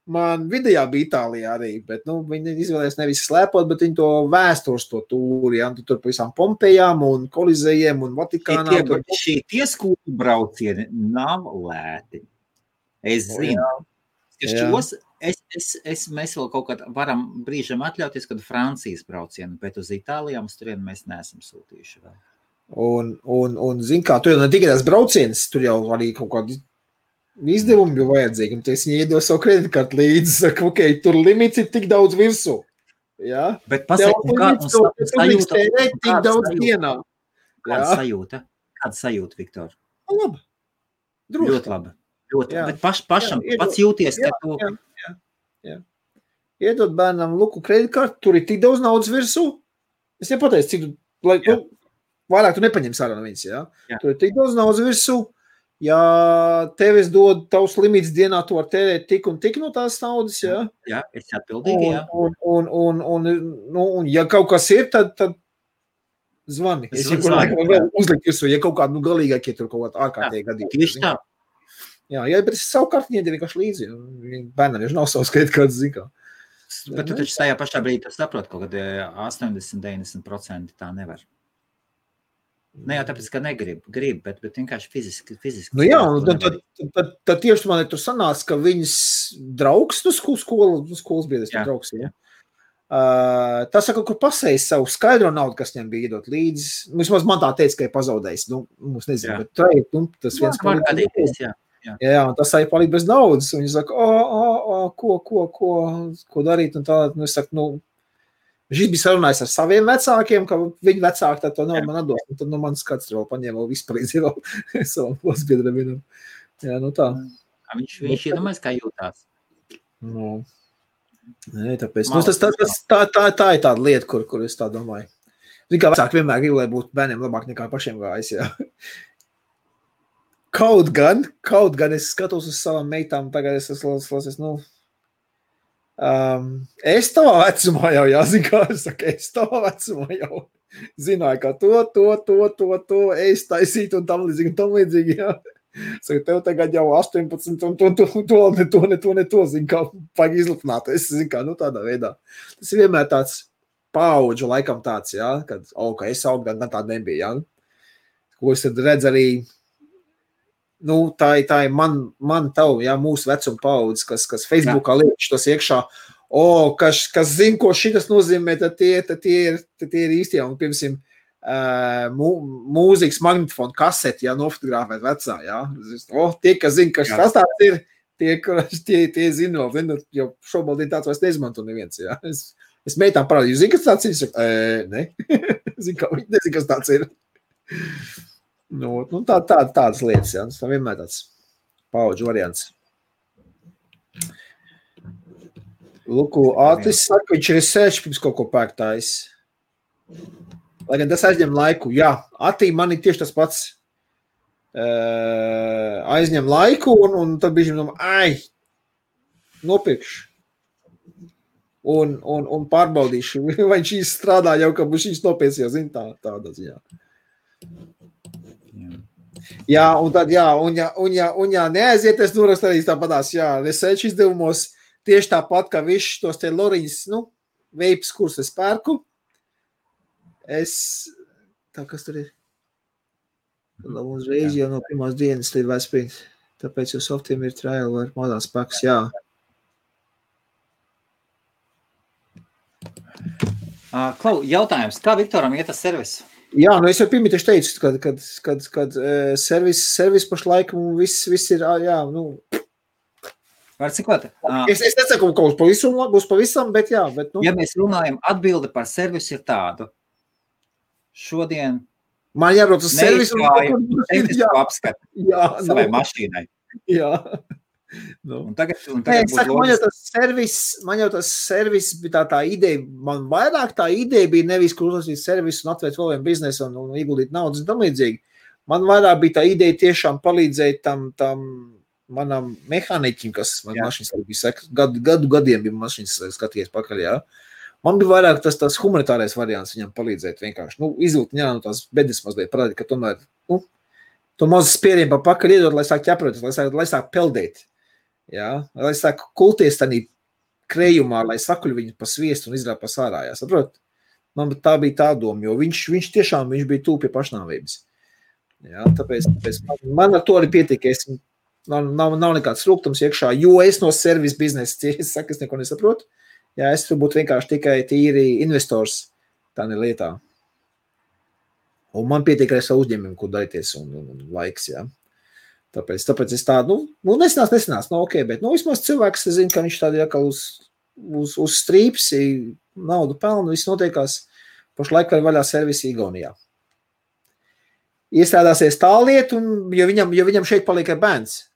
Man vidējā bija Itālijā arī, bet, nu, viņi izvēlēs nevis slēpot, bet viņi to vēstures to tūri, jā, tur pa visām Pompejām un Kolizejiem un Vatikānām. Šie skolu braucieni nav lēti. Es zinu. Mēs vēl kaut kad varam brīžam atļauties, kad Francijas braucienu, bet uz Itālijām uz turienu mēs neesam sūtījuši vēl. Un zin kā, tur jau ne tikai tās braucienas, tur jau arī kaut kādi izdevumi bija vajadzīgi, un es viņai iedodu savu kreditkartu līdzi, saka, ok, tur limits ir tik daudz virsū. Jā? Bet pasaka, tik daudz dienā. Kāda sajūta? Kāda sajūta, Viktor? Labi. Droši. Ļoti labi. Ļoti. Bet pašam pats jūties, ka tu... Jā. Iedod bērnam luku kreditkartu, tur ir tik daudz naudas virsū. Es nepateicu, cik tu, lai, nu, vairāk tu nepaņems ārā no viņas, jā? Tur ir tik daudz naudas virsū. Ja tev es dodu tavs limits dienā, tu var tērēt tik un tik no tās naudas, jā? Jā, es atbildīgi, jā. Un ja kaut kas ir, tad zvani. Es jau vēl uzlikt virsū, ja kaut kādu galīgākie tur kaut kādā ārkārtīgi gadījumā. Tieši tā. Jā, bet es savu kartiņu iedēju vienkārši līdzi. Bērnam jau nav savs kreditkartes, zin kā. Bet tu taču tajā pašā brīdī saproti, kaut kad 80-90% tā nevar. Ne jau tāpēc, ka grib, bet vienkārši fiziski. Nu jā, tad tieši man tur sanāca, ka viņas draugs, skolas biedrs, draugs, jā. Tas kaut kur pasējas savu skaidro naudu, kas viņam bija iedot līdzi. Vismaz man tā teica, ka ir pazaudējis. Nu, mums nezinu, bet tas viens palīdz. Jā, un tas arī palīdz bez naudas. Un viņi saka, ko darīt? Un tā, nu, es saku, nu, viņš bija sarunājis ar saviem vecākiem, ka viņi vecāki tā to naudu man atdos. Un tad, nu, mans kāds tur vēl paņēma vēl vispalīdz jau savam klasbiedram vienam. Jā, nu tā. Viņš iedomājas, kā jūtās. Nu, nē, tāpēc. Nu, tā ir tāda lieta, kur es tā domāju. Zin kā vecāki vienmēr grib, lai būtu bērniem labāk nekā pašiem gājis, jā. Kaut gan es skatos uz savām meitām, tagad es es tavā vecumā jau, jāzin kā es saku, es tavā vecumā jau zināju, ka to es taisītu un tam līdzīgi, jā. Saka, tev tagad jau 18 un to, zin kā, vajag izlipnāt, es zin kā, nu tādā veidā. Tas ir vienmēr tāds paudžu laikam tāds, jā, kad, ka es augu, gan tāda nebija, jā. Ko es tad redz arī, nu, tā ir man tavu, jā, mūsu vecuma paudze, kas Facebookā liek šitos iekšā, kas zina, ko šitas nozīmē, tad tie ir īstie, un, piemēram, mūzikas magnetofonu kaseti, jā, nofotogrāfēt vecā, jā. Tie, kas zina, kas tas tāds ir, tie zina, jo šobrīd tāds vairs neizmanto neviens, jā. Es meitām parādīju, zini, kas tāds ir? Ne. Zini, kā viņi nezina, kas tāds ir. Nu, tādas lietas, jā. Tas vienmēr tāds paudžu variants. Luku, Ātris saka, viņš ir sēž pirms kaut ko pērktājis. Lai gan tas aizņem laiku. Jā, Atī man ir tieši tas pats. Aizņem laiku, un tad bišķi nopirkšu. Un pārbaudīšu, vai šīs strādā jau, ka šīs nopietnas jau zina tādā ziņā. Jā, un tad, neaiziet, es norakstu arī tāpatās, research izdevumos tieši tāpat, kā visus tos te Loriņas, veips, kurus es pērku. Kas tur ir? Uzreiz jau no pirmās dienas līdz Vesprints. Tāpēc jau softiem ir trial vai modās paks, jā. Klau, jautājums, kā Viktoram iet tas servis? Jā, es jau pirmie tieši teicu, kad servis pašlaik viss ir, Var cikot? Es nesaku, ka būs pavisam, bet jā. Ja mēs runājam, atbilde par servisu ir tādu. Šodien man jābrauc uz servisu un apskatu savai mašīnai. Jā. Un tagad man jau tas servis bija tā ideja, man vairāk tā ideja bija nevis, kur uzlasīt servisu un atvērt vēl vienu biznesu un ieguldīt naudas un tam līdzīgi. Man vairāk bija tā ideja tiešām palīdzēt tam manam mehāniķim, kas man mašīnas bija gadiem bija mašīnas skatījies pakaļ, jā. Man bija vairāk tas humanitārais variants viņam palīdzēt vienkārši. Izvilkt no tās bedes mazliet parādīt, ka tomēr, to mazu spieriem pa pakaļ iedot, lai sāk ķeproties, lai sāk peldēt. Jā, lai sāk kulties tādā krējumā, lai sakuļ viņu pa sviestu un izrāp pa sārā, jā, saprot? Man tā bija tā doma, jo viņš tiešām bija tūp pie pašnāvības. Jā, tāpēc man ar to arī pietika, nav nekāds rūgtums iekšā, jo es no servis biznesa, es neko nesaprotu. Jā, es tur būtu vienkārši tikai tīri investors tādā lietā. Un man pietiek ar savu uzņēmumu, kur darīties un laiks, jā. Tāpēc es tādu, nesinās, ok, bet, vismaz cilvēks, es zinu, ka viņš tādi jākal uz strīps, naudu pelnu, viss notiekās, pašlaik vēl vaļā servisi Igaunijā. Iestrādāsies tā lieta, jo viņam šeit paliek bērns.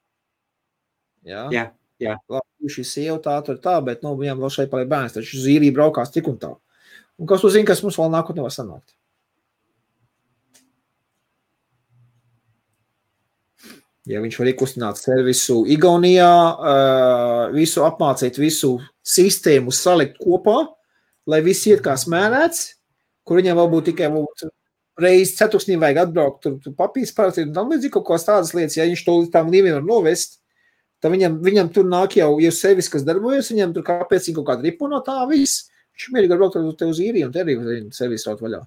Jā. Labi, šī sieva tā, bet viņam vēl šeit paliek bērns, taču uz īriju braukās tik un tā. Un kas tu zini, kas mums vēl nākotnē var sanākt? Ja viņš var iekustināt servisu Igaunijā, visu apmācīt, visu sistēmu salikt kopā, lai viss iet kā smērēts, kur viņam vēl būtu tikai reizi ceturksnī vajag atbraukt, tur papīrs parakstīt un tam līdzīgi kaut kās tādas lietas, ja viņš to līdz tām līmēm var novest, tad viņam tur nāk jau servis, kas darbojas, viņam tur kāpēc viņa kaut kāda ripo no tā viss, viņš mierīgi var braukt te uz īriju un te arī servis raut vaļā.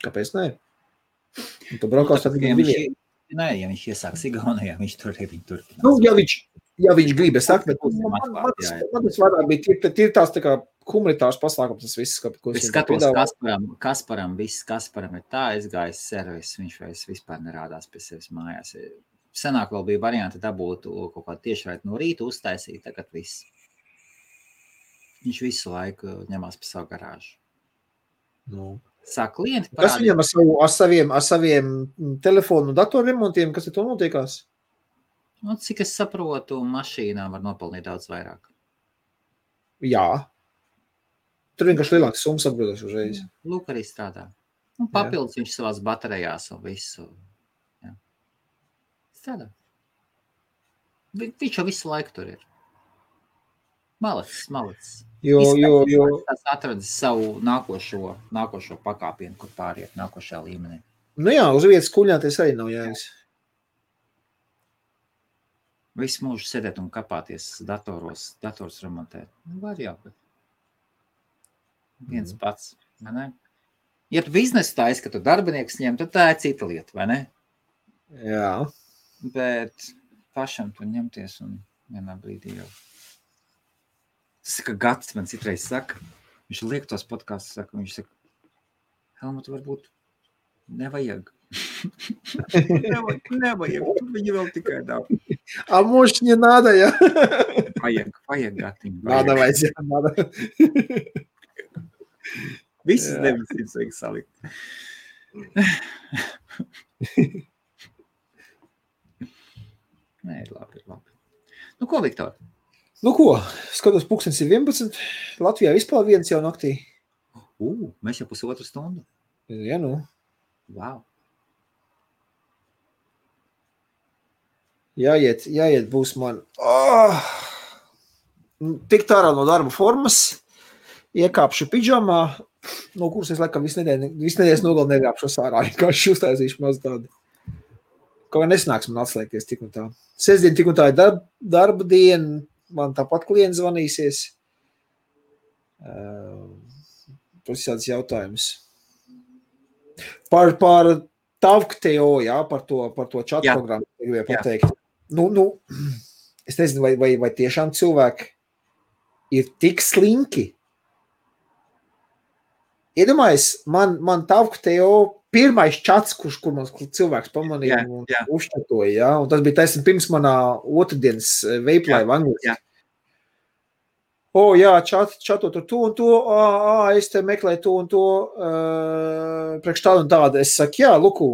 Kāpēc ne? Un tu braukās tad viņam diviem. Nē, ja viņš iesāks Igaunijā, viņš tur arī viņu tur. Ja viņš grib, es saku, bet man tas vairāk bija tīri tās tā kā humanitārs pasākums, tas viss. Es skatos Kasparam ir tā aizgājis servis, viņš vairs vispār nerādās pie sevis mājās. Senāk vēl bija varianti dabūt kaut kādu tiešraidi no rīta uztaisīt, tagad viss. Viņš visu laiku ņemās pa savu garāžu. Sāk klienti parādīt. Kas viņam ar saviem telefonu un datoru remontiem, kas ir to notiekās? Cik es saprotu, mašīnām var nopelnīt daudz vairāk. Jā. Tur vienkārši lielāks summas atbildēs uzreiz. Lūk, arī strādā. Un papildus viņš savās baterijās un visu. Jā. Strādā. Viņš jau visu laiku tur ir. Malacis. Jo. Tas atradis savu nākošo pakāpienu, kur pāriet nākošajā līmenī. Jā, uz vietas kuļņāties arī nav jēgas. Visu mūžu sēdēt un kapāties dators remontēt. Var jau, bet viens pats, vai ne? Ja tu biznesu taisi, ka tu darbinieks ņem, tad tā ir cita lieta, vai ne? Jā. Bet pašam tu ņemties un vienā brīdī jau. Tas ir, ka Gats man citreiz saka, viņš liek tos podkastus, viņš saka, Helmut, varbūt nevajag. Nevajag, viņi vēl tikai dāv. A может не надо, ja? Vajag Gatiņu. Надо, надо. Visas 900 vajag salikt. Nē, ir labi. Ko, Viktor? Ko? Skatos, pulkstenis ir 11. Latvijā vispār viens jau naktī. Mēs jau 1,5 stundu. Ja, nu. Wow. Jāiet būs man. Tikt ārā no darba formas, iekāpšu pidžamā, no kuras es laikam visu nedēļas nogali negāpšos ārā, vienkārši uztaisīšu maz tādu. Kaut kā nesanāks man atslēgties tik un tā. Sestdien tik un tā ir darba diena, man tāpat klients zvanīsies. Tas ir tāds jautājums. Par TavkTO, jā, par to čatu programmu, gribēju pateikt. Es nezinu, vai tiešām cilvēki ir tik slinki. Iedomājies, man TavkTO pirmais čats, kur man cilvēks pamanīja un uzčatoja, jā, un tas bija taisni pirms manā otrdienas veiplaiva angliski. Jā, čatot ar to un to, es te meklēju to un to, priekš tādu un tādu. Es saku, jā, luku,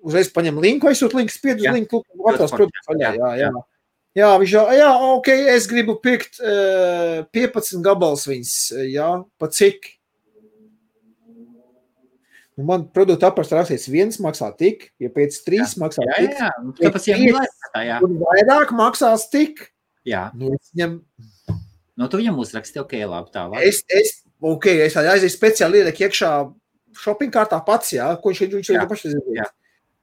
uzreiz paņem linku, aizsūt linku, spied uz linku, luku, atrās produktu vaļā, jā. Jā, viņš jau, ok, es gribu pirkt 15 gabals viņas, jā, pa cik? Man produktu aprakstā rakstīts, viens maksā tik, ja pēc 3 maksā tik. Jā. Un vairāk maksās tik. Jā. Es viņam... Tu viņam uzraksti, ok, labi, tā var. Es aizēju speciāli ieliek iekšā shopping kārtā pats, jā, ko viņš jau paši zina.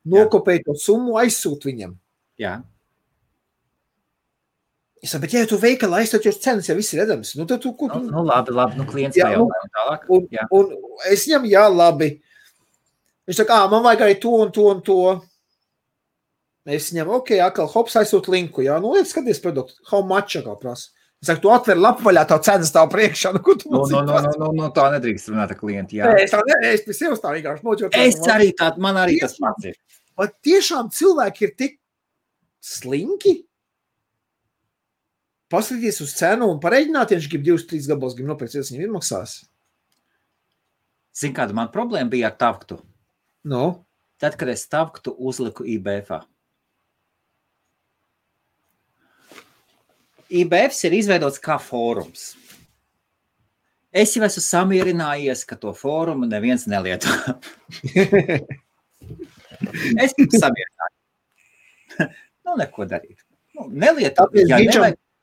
Nokopēju to summu, aizsūt viņam. Jā. Es saku, bet ja tu veikalā aizsūt, jo cenas jau viss ir redzams. Tad tu... Labi, klients pajautājumi tālāk. Un es viņam, jā, labi. Viņš saka, man vajag arī to un to un to. Es viņam, ok, atkal hops aizsūt linku, jā, skaties produktu, how much atkal prasa. Es saku, tu atver lapu vaļā, tavu cenas tavu priekšā. Tā nedrīkst runāt ar klientu, jā. Es pie sevis tā vienkārši noķot. Man arī tas pats ir. Bet tiešām cilvēki ir tik slinki. Paskatīties uz cenu un pareiģināt, ja viņš grib 2-3 gabals, grib nopirkt, ja viņam izmaksās. Zini, kāda man problēma bija ar TavkTO? Tad, kad es TavkTO uzliku IBF-ā. IBFs ir izveidots kā fórums. Es jau esmu samierinājies, ka to fórumu neviens nelieto. Es jau samierināju. Neko darīt. Nelieto.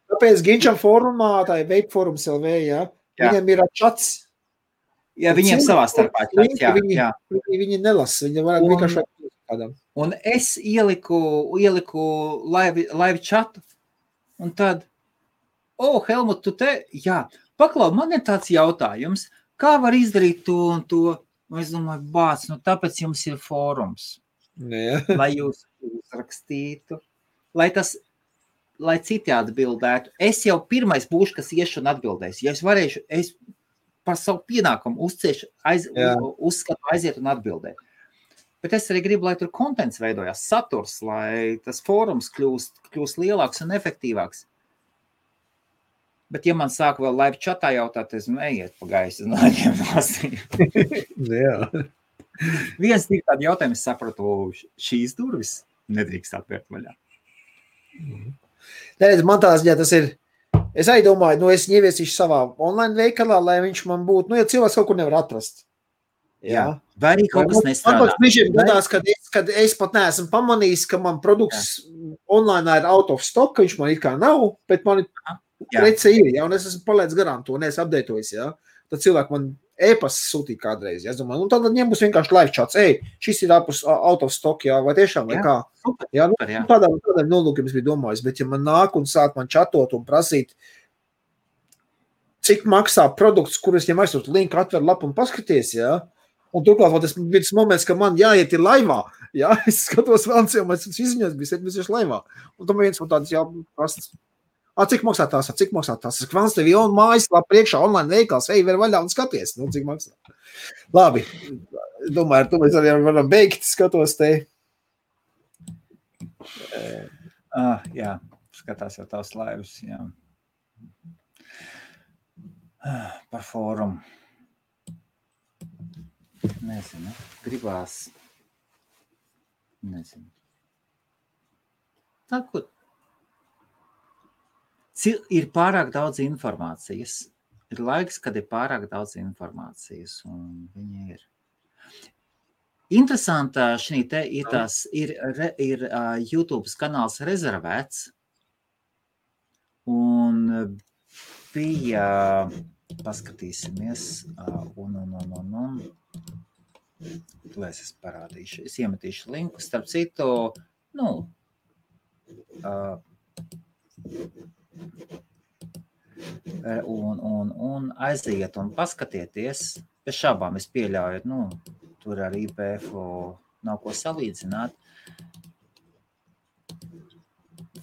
Tāpēc Ginčam fórumā, tā ir Vape Forums LV, jā. Viņam ir čats. Jā, viņiem savā starpā čats, jā. Viņi nelasa, viņi varētu vienkārši kādam. Un es ieliku live chatu, un tad Helmut, tu te, jā, paklau, man ir tāds jautājums, kā var izdarīt to un to? Un es domāju, tāpēc jums ir fórums, lai jūs uzrakstītu, lai citi atbildētu. Es jau pirmais būšu, kas iešu un atbildēs. Ja es varēšu, es par savu pienākumu uzskatu aiziet un atbildēt. Bet es arī gribu, lai tur kontents veidojās, saturs, lai tas fórums kļūst lielāks un efektīvāks. Bet, ja man sāk vēl live chatā jautāt, es ejiet pa gaisu un laidiem nosīm. Jā. Viens tik tādu jautājumu, es sapratu, šīs durvis nedrīkst atvērt vaļā. Neredz, man tā ziņā tas ir, es arī domāju, es ieviesīšu savā online veikalā, lai viņš man būtu, ja cilvēks kaut kur nevar atrast. Jā. Vai arī kaut kas nestrādā. Man brīžiem gadās, kad es pat neesmu pamanījis, ka man produkts online ir out of stock, ka viņš man it kā nav, bet man prece ir, jā, un es esmu palaidis garām to, un es updatojos, jā. Tad cilvēki man e-pasas sūtīja kādreiz, jā, es domāju, un tad viņiem būs vienkārši live chats, šis ir out of stock, jā, vai tiešām, vai kā. Jā, tādām nolūkiem es biju domājis, bet ja man nāk un sāk man chatot un prasīt, cik maksā produkts, kur es viņam aizsūtu linku, atver lapu un paskaties, jā, un turklāt tas bija tas moments, ka man jāiet ir laivā, jā, es skatos vēl, un es izziņos bija 7 laivā, un tam viens man tāds jāprastas, cik maksā tās? Es kvans tev jau mājas lapa priekšā online veikals, ver vaļā un skaties, cik maksā. Labi, domāju, ar to mēs arī varam beigt, skatos te. Jā, skatās jau tavs laivas, jā. Par fórumu. Nezinu, gribās. Nezinu. Tā, ko? Ir pārāk daudz informācijas. Ir laiks, kad ir pārāk daudz informācijas, un viņi ir. Interesantā šī te ir YouTube kanāls rezervēts, un bija, paskatīsimies, un lai es parādīšu, es iemetīšu linku, starp citu, un aiziet un paskatieties, bez šābām es pieļauju, tur ar IPF nav ko salīdzināt.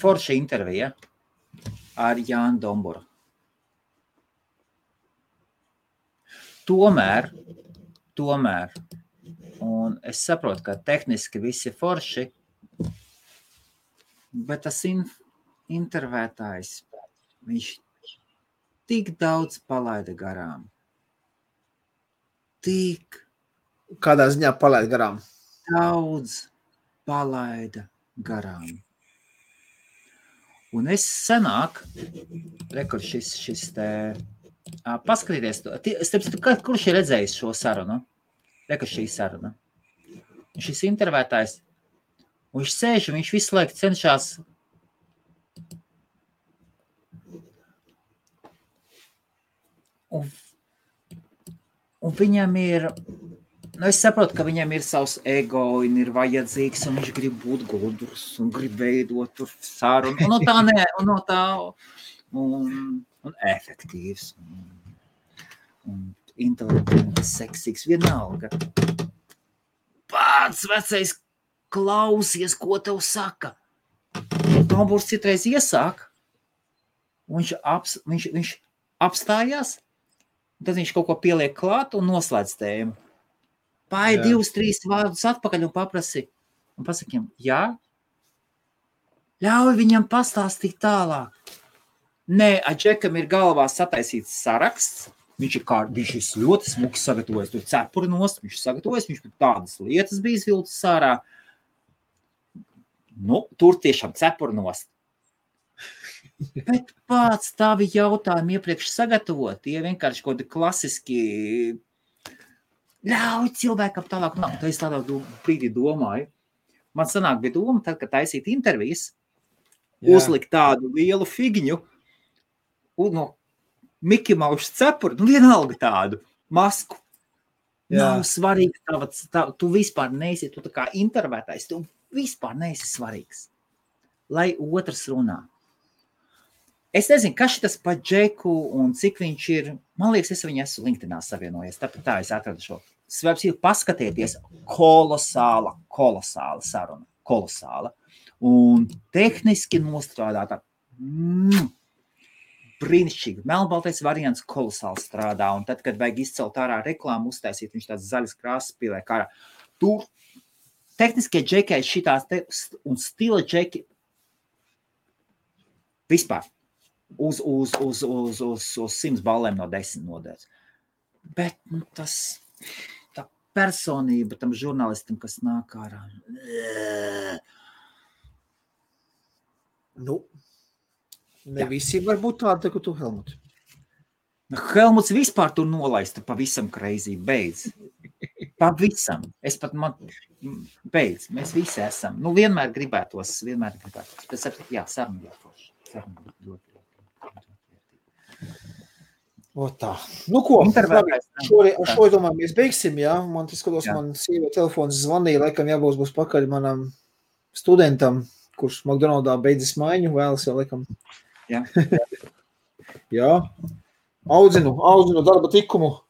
Forša intervija ar Jānu Domburu. Tomēr, un es saprotu, ka tehniski visi forši, bet tas intervētājs, viņš tik daudz palaida garām. Kādā ziņā palaida garām? Daudz palaida garām. Un es senāk, rekur šis te, paskatīties, kurš ir redzējis šo sarunu? Rekur šī saruna. Un šis intervētājs, un viņš sēž, un viņš visu laiku cenšas un viņam ir, es saprotu, ka viņam ir savs ego, un ir vajadzīgs, un viņš grib būt gudrs, un grib veidot tur sarunu, un efektīvs, un inteliģents, seksīgs, vienalga. Pats vecais klausies, ko tev saka. Domburs citreiz iesāk, un viņš apstājās, tad viņš kaut ko pieliek klāt un noslēdz tēmu. Pāri 2-3 vārdus atpakaļ un pasakiem, jā, ļauj viņam pastāstīt tālāk. Nē, Džekam ir galvā sataisīts saraksts, viņš ir ļoti smuki sagatavojas, tur cepuri nost, viņš sagatavojas, viņš tādas lietas bija izvilcis sārā. Tur tiešām cepuri nost. Bet pats tavi jautājumi iepriekš sagatavot, tie vienkārši kaut kādi klasiski ļauj cilvēkam tālāk. Tā es tādā brīdī domāju. Man sanāk bija doma, tad, kad taisīt intervijas, uzlikt tādu lielu figņu, un no Miki Maušas cepuri, vienalga tādu masku. Nav svarīgi, tu vispār neesi, tu tā kā intervētājs, tu vispār neesi svarīgs. Lai otrs runā. Es nezinu, kas šitas pa Džeku un cik viņš ir, man liekas, es viņu esmu LinkedInā savienojies, tāpēc tā es atradu šo. Svarbs ir paskatieties, kolosāla saruna, kolosāla. Un tehniski nostrādāta, brīnišķīgi. Melnbaltais variants kolosāli strādā, un tad, kad vajag izcelt ārā reklāmu, uztaisīt, viņš tāds zaļas krāsas pieliek ārā. Tur tehniskie džekai šitās un stila džeki vispār uz 100 ballēm no 10 nodēļas. Bet tā personība tam žurnālistam, kas nāk ārā. Ne visi var būt tādi, ka tu, Helmut. Helmuts vispār tur nolaista pavisam crazy, beidz. Pavisam. Beidz. Mēs visi esam. Vienmēr gribētos. Bet saruna jāforši. Tā. Ko? Ar šo domāju, mēs beigsim, jā? Man tas skatos, man sieva telefons zvanīja, laikam būs pakaļ manam studentam, kurš McDonaldā beidzis maiņu, vēlas jau laikam. Jā. Audzinu darba tikumu.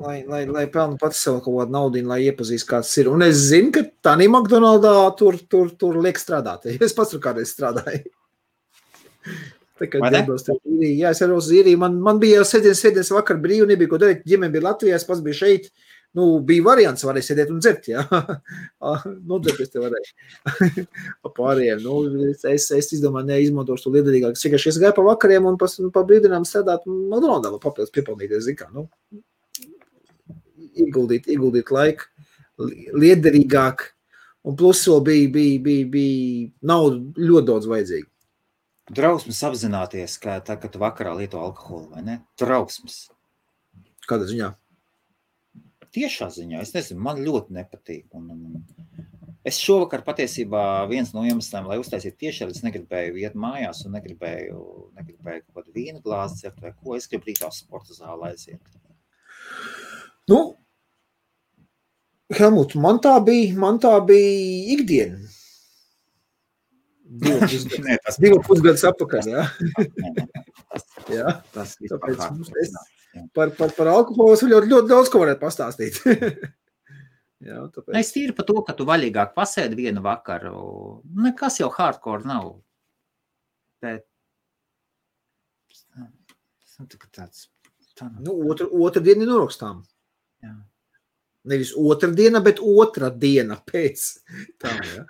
Lai pelnu pats sev kaut kādu naudinu, lai iepazīst, kāds ir. Un es zinu, ka tādā McDonaldā tur liek strādāt. Es pats tur kādreiz strādāju. Tā kā es arī uz īriju. Man bija sēdienas vakar brīvi, nebija ko darīt. Ģimene bija Latvijā, es pats biju šeit. Bija variants, varēja sēdēt un dzert, jā. Nodzerties te varēja. Pārējiem. Es izdomāju, neizmantošu to liederīgāk. Es gāju pa vakariem un pa brīdinām strādāt McDonaldā, vai papildus piepelnīties, zin kā. Ieguldīt laiku, liederīgāk. Un plus vēl bija nauda ļoti daudz vajadzīga. Drausmas apzināties, ka tā, kad tu vakarā lieto alkoholu, vai ne? Drausmas. Kādā ziņā? Tiešā ziņā, es nezinu, man ļoti nepatīk. Es šovakar patiesībā viens no iemesliem, lai uztaisītu tiešā, es negribēju iet mājās un negribēju kaut kādu vīna glāzi dzert vai ko. Es gribu rītā sporta zālē aiziet. Nu, Helmut, man tā bija ikdiena. 2 pusgadus atpakaļ, jā. Jā, Tas tāpēc par alkoholu es ļoti daudz ko varētu pastāstīt. Jā, tāpēc. Es tīri par to, ka tu vaļīgāk pasēdi vienu vakaru. Nekas jau hardcore nav. Bet tāds. Nu, otra diena ir norakstām. Jā. Nevis otra diena, bet otra diena pēc. Tā, jā.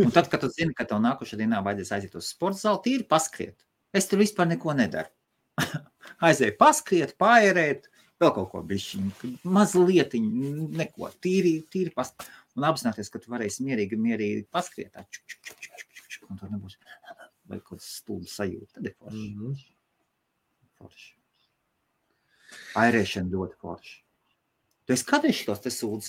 Un tad, kad tu zini, ka tev nākošā dienā vajadzēs aiziet uz sporta zāli, tīri paskriet. Es tur vispār neko nedaru. Aizēju paskriet, paērēt, vēl kaut ko bišķiņu, mazlietiņu, neko, tīri paskriet. Un apzināties, ka tu varēsi mierīgi paskriet, tā, un tur nebūs vai kaut stulbu sajūta. Tad ir forši. Forši. Airēšana ļoti forši. Tu esi kādreiz šitos te sūdz,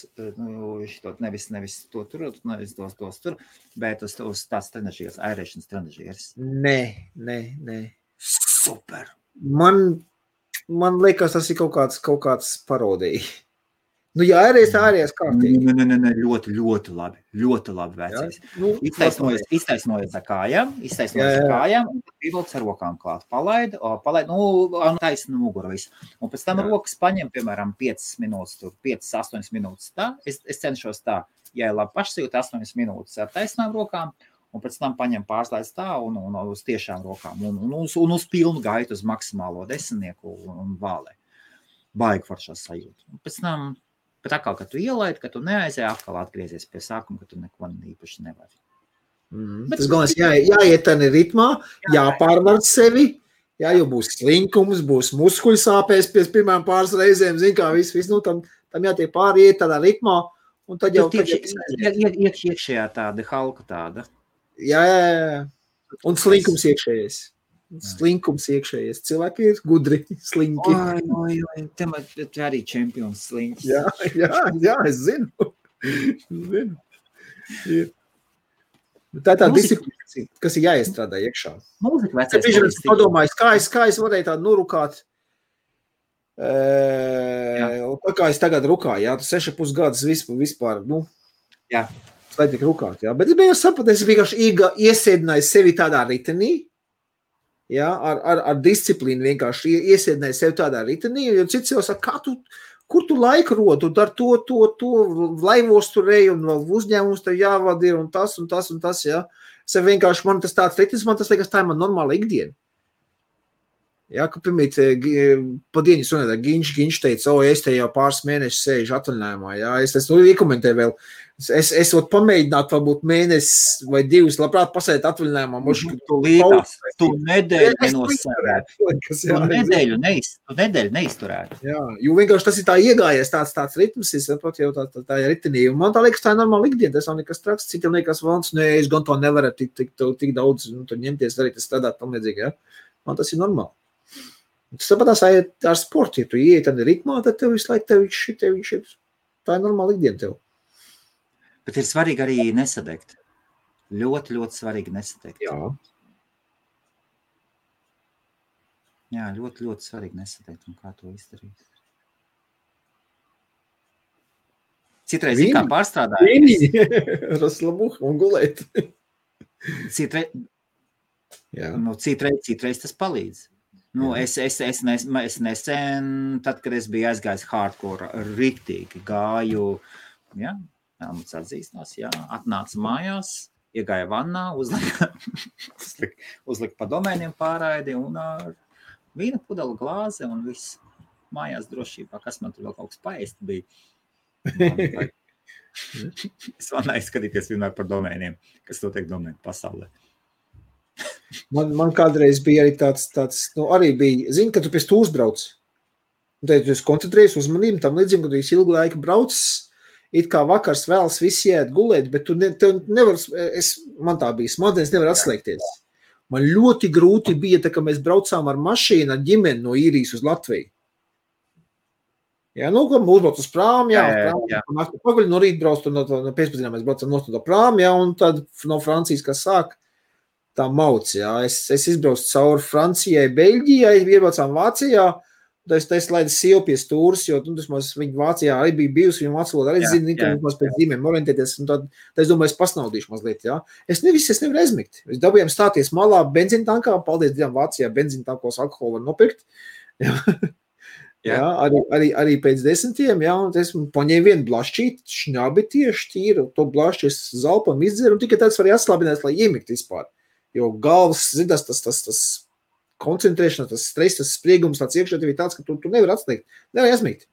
nevis to tur, nevis tos tur, bet uz tāds trenažieris, airēšanas trenažieris. Nē. Super! Man liekas, tas ir kaut kāds parodija. Nu, ja ārējais kārtīgi. Nē, ļoti labi vecais. Nu, Iztaisnojies ar kājām, un pievilks ar rokām klāt. Palaid, taisna muguru visu. Un pēc tam rokas paņem, piemēram, 5 minūtes, 5-8 minūtes tā. Es cenšos tā, ja labi pašsajūt 8 minūtes ar taisnām rokām, un pēc tam paņem pārslēdz tā un uz tiešām rokām, un uz pilnu gaitu, uz maksimālo 10 un vālē. Baigi foršās sajūta. Un pēc tam, bet atkal, kad tu ielaid, kad tu neaizēji, atkal atgriezies pie sākuma, ka tu neko īpaši nevari. Tas galvenais, jāiet tādā ritmā, jāpārvar sevi, jo būs slinkums, būs muskuļu sāpēs pēc pirmām pāris reizēm, zin kā viss, nu, tam jātiek pāriet tādā ritmā, un tad jau... Iekšējā tāda, halka tāda. Jā. Un slinkums iekšējais. Cilvēki ir gudri, slinki. Oi, te arī čempions slinks. Jā, es zinu. Tā tā disciplīna, kas ir jāiestrādā iekšā. Mūzika vecais. Es padomāju, kā es varēju tādu nurukāt, kā es tagad rukāju, jā, tu 6,5 gadus vispār, nu. Jā. Lai tik rukāt, jā. Bet es biju sapratu, es vienkārši iesēdināju sevi tādā ritenī, jā, ar disciplīnu vienkārši iesēdināju sevi tādā ritenī, jo cits jau saka, kur tu laiku rod, tu dar to, laivos tur ej, un uzņēmums tev jāvada ir, un tas, jā. Es vienkārši, man tas tāds ritenis, man tas liekas, tā ir man normāla ikdiena. Jā, ka pirmīt, pa dienu runāt, Ginč teica, es te jau pāris mēnešus sēžu atvaļinājumā, jā, es iekomentēju vēl, es varu pamēģināt varbūt mēnesi vai 2, labprāt pasēt atvaļinājumā. Tu nedēļu nenosērētu. Tu nedēļu neizturētu. Jā, jo vienkārši tas ir tā iegājies tāds ritms, es saprotu jau tā ir ritenī, un man tā liekas, tā ir normāla ikdiena, tas nav nekas traks, citiem liekas, valns, es gan to nevaru tik daudz, tur ņemties, darīt, strādāt tam līdzīgi, jā. Man tas ir normāli. Tas tāpatās ar sportu, ja tu ieiet tādā ritmā, tad tev visu laiku tev tā ir normāla ikdiena tev. Bet ir svarīgi arī nesadegt. Ļoti svarīgi nesadegt. Jā, ļoti svarīgi nesadegt, un kā to izdarīt. Citreiz kā pārstrādājies. Raslabuh un gulēt. Citreiz tas palīdz. Nu, es nesen, tad, kad es biju aizgājis hardcore, riktīgi gāju, jā, Helmuts atzīstinās, jā, atnāca mājās, iegāja vannā, uzlika pa domēniem pārraidi un ar vīna pudeli glāze un viss mājās drošībā, kas man tur vēl kaut kas paēst bija. Es vannā izskatīties vienmēr par domēniem, kas notiek domēnu pasaulē. Man kādreiz bija arī tāds, arī bija, zini, ka tu pēc tu uzbrauc. Un tad tu esi koncentrējies uzmanību, tam līdzīgi, ka tu esi ilgu laiku braucis, it kā vakars vēlas visi iet gulēt, bet tu nevar, man tā bija, smadzenes nevar atslēgties. Man ļoti grūti bija, tā, ka mēs braucām ar mašīnu, ar ģimeni no Īrijas uz Latviju. Jā, nu, kad mūs brauc uz prāmu, pagaļ no rīta brauc, no pēcpazienā mēs braucam no prāmu, jā, un tad no Francijas, kas sāk, tā mauc, jā. Es izbraucu cauri Francijai, Beļģijai, iebraucām Vācijā, tad es laidu sievu pie stūras, jo, nu, viņa Vācijā arī bija bijusi, viņa vācu valodu arī zina, ka mums pēc zīmēm orientēties, un tad es domāju, es pasnaudīšu mazliet, jā. Es nevaru aizmigt. Es dabūjām stāties malā benzīntankā, paldies Dievam Vācijā, benzīntankos alkoholu var nopirkt, jā. Jā, arī pēc 10, jā, un es paņēmu vienu blašķīti, šņabi tieši tīru, to blašķi es zalpam izdzeru, un tikai tāds var jāslābināt, lai iemikt vispār. Jo galvas, zinās, tas koncentrēšana, tas stress, tas spriegums, tāds iekšā tev ir tāds, ka tu nevar atslēgt, nevar aizmigt.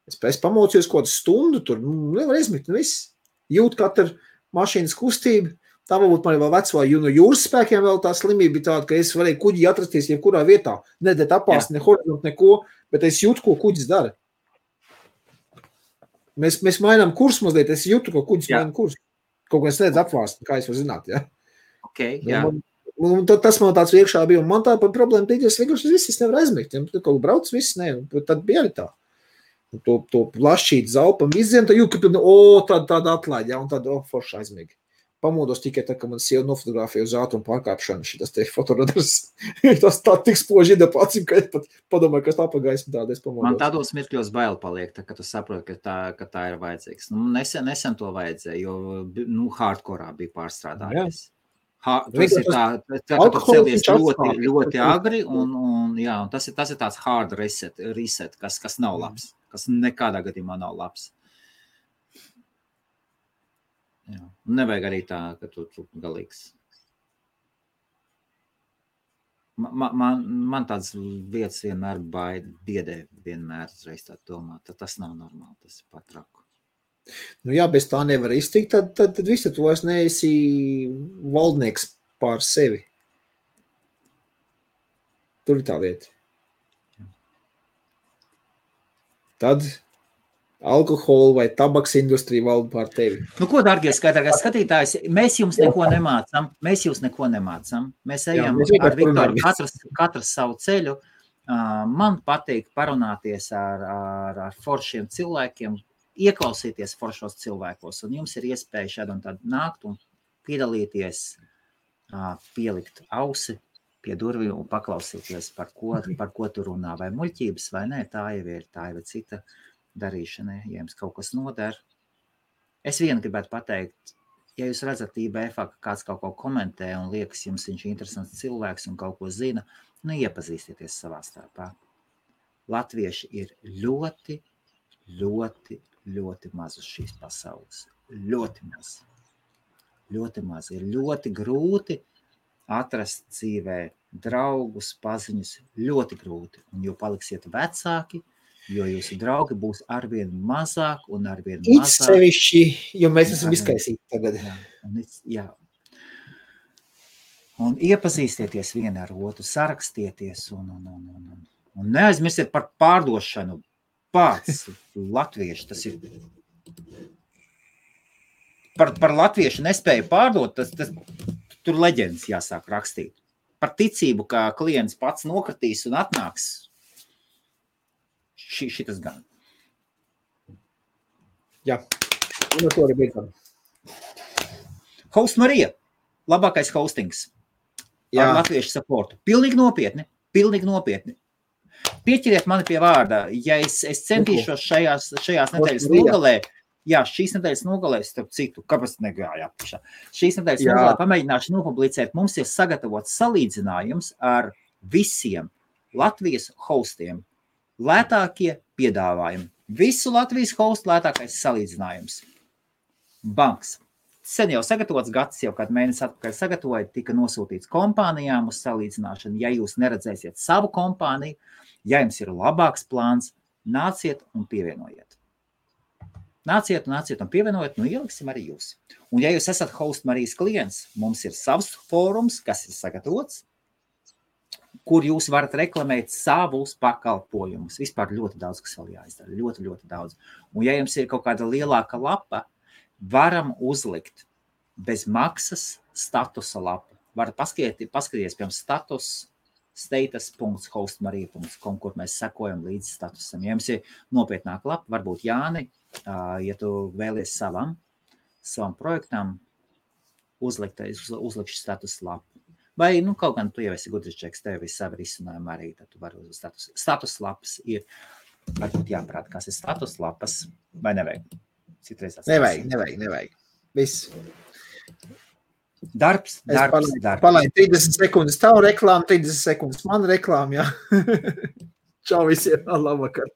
Es pamocījos kaut kādu stundu tur, nevar aizmigt, un viss. Jūt katru mašīnas kustību. Tā varbūt man vēl vecvā, jo no jūras spēkiem vēl tā slimība bija tāda, ka es varēju kuģi atrasties jebkurā vietā. Nedēt apāst, ne horizont, neko, bet es jūtu, ko kuģis dara. Mēs mainām kursu mazliet, es jūtu, ko kuģis maina kursu. Kaut ko es nedz apvāst, kā es varu zināt, jā. Okay, jā. Un tas man tāds iekšā bija, un man tā par problēmu tīk, es vienkārši viss nevar aizmigt. Ja kaut brauc viss, ne, tad bija arī tā. Un to plašķīt zalpam izdien, tad jūt, ka tāda atlaid, jā, un tad forši aizmīgi. Pamodos tikai tā, ka man sieva nofotografēja uz ātrumu pārkāpšanu, šitas te fotoradars. Tas tā tik spoži ida pacim, ka es pat padomāju, kas tā pa gaismu tāda, es pamodos. Man tādos mirkļos bail paliek, tā, ka tu saproti, ka tā ir vajadzīgs. Nu, nesen to vajadzēja, jo hardkorā bija pārstrādājies. Tas ir tā, ka tu celies ļoti agri, un tas ir tāds hard reset, kas nav labs, kas nekādā gadījumā nav labs. Jā. Nevajag arī tā, ka tu galīgs. Man tāds vietas vienmēr biedē, vienmēr reiz tā domā, tad tas nav normāli, tas ir pat traku. Nu jā, bez tā nevar iztikt, tad visi tu vairs neesi valdnieks pār sevi. Tur ir tā lieta. Tad alkohola vai tabaks industrija valda pār tevi. Nu, ko, dargie skatītājs, mēs jums neko nemācam. Mēs ejam ar Viktoru, katrs savu ceļu. Man patīk parunāties ar foršiem cilvēkiem, ieklausīties foršos cilvēkos, un jums ir iespēja šādu un tādu nākt un piedalīties, pielikt ausi pie durvīm un paklausīties, par ko tu runā, vai muļķības, vai nē, tā jau ir cita darīšanai, ja jums kaut kas noder. Es vienu gribētu pateikt, ja jūs redzat IBF-ā, ka kāds kaut ko komentē un liekas, jums viņš ir interesants cilvēks un kaut ko zina, nu iepazīstieties savā starpā. Latvieši ir ļoti, ļoti, ļoti maz uz šīs pasaules. Ļoti maz. Ļoti maz. Ir ļoti grūti atrast dzīvē draugus, paziņus. Ļoti grūti. Un jo paliksiet vecāki, jo jūsu draugi būs arvien mazāk un arvien mazāk. It sevišķi, jo mēs esam izkaisīti tagad. Jā. Un iepazīstieties vien ar otru, sarakstieties un neaizmirstiet par pārdošanu. Pats latvieši, tas ir par latviešu nespēju pārdot, tas tur leģendas jāsāk rakstīt. Par ticību, ka klients pats nokratīs un atnāks. Šitas gan. Jā, un ar to arī beidzam. Host Marija, labākais hostings. Jā. Ar latviešu supportu. Pilnīgi nopietni. Pieķeriet mani pie vārda. Ja es centīšos šajās nedēļas nogalē, šīs nedēļas nogalē, starp citu, kāpēc negāja apšā. Šīs nedēļas nogalē pamēģināšu nopublicēt. Mums ir sagatavots salīdzinājums ar visiem Latvijas hostiem. Lētākie piedāvājumi. Visu Latvijas hostu lētākais salīdzinājums. Banks. Sen jau sagatavots, gads jau kādu mēnesi atpakaļ sagatavoja, tika nosūtīts kompānijām uz salīdzināšanu. Ja jūs neredzēsiet savu kompāniju, ja jums ir labāks plāns, nāciet un pievienojiet. Nāciet un pievienojiet, nu ieliksim arī jūs. Un ja jūs esat Host Marijas klients, mums ir savs fórums, kas ir sagatavots, kur jūs varat reklamēt savus pakalpojumus. Vispār ļoti daudz, kas vēl jāizdara. Ļoti, ļoti daudz. Un ja jums ir kaut kāda lielāka lapa, varam uzlikt bez maksas statusa lapu. Var paskatīties, piemēram, status.hostmarija.com, kur mēs sekojam līdz statusam. Ja jums ir nopietnāka lapa, varbūt Jāni, ja tu vēlies savam projektam, uzlikšu status lapu. Vai, kaut gan tu jau esi gudrs čeks, tev ir savi risinājumi arī, tad tu vari uz status lapas ir, varbūt jāprāt, kas ir status lapas, vai nevajag? Nevajag. Viss. Darbs. Palaid 30 sekundes tavu reklāmu, 30 sekundes man reklāmu, jā. Čau visiem, labvakar.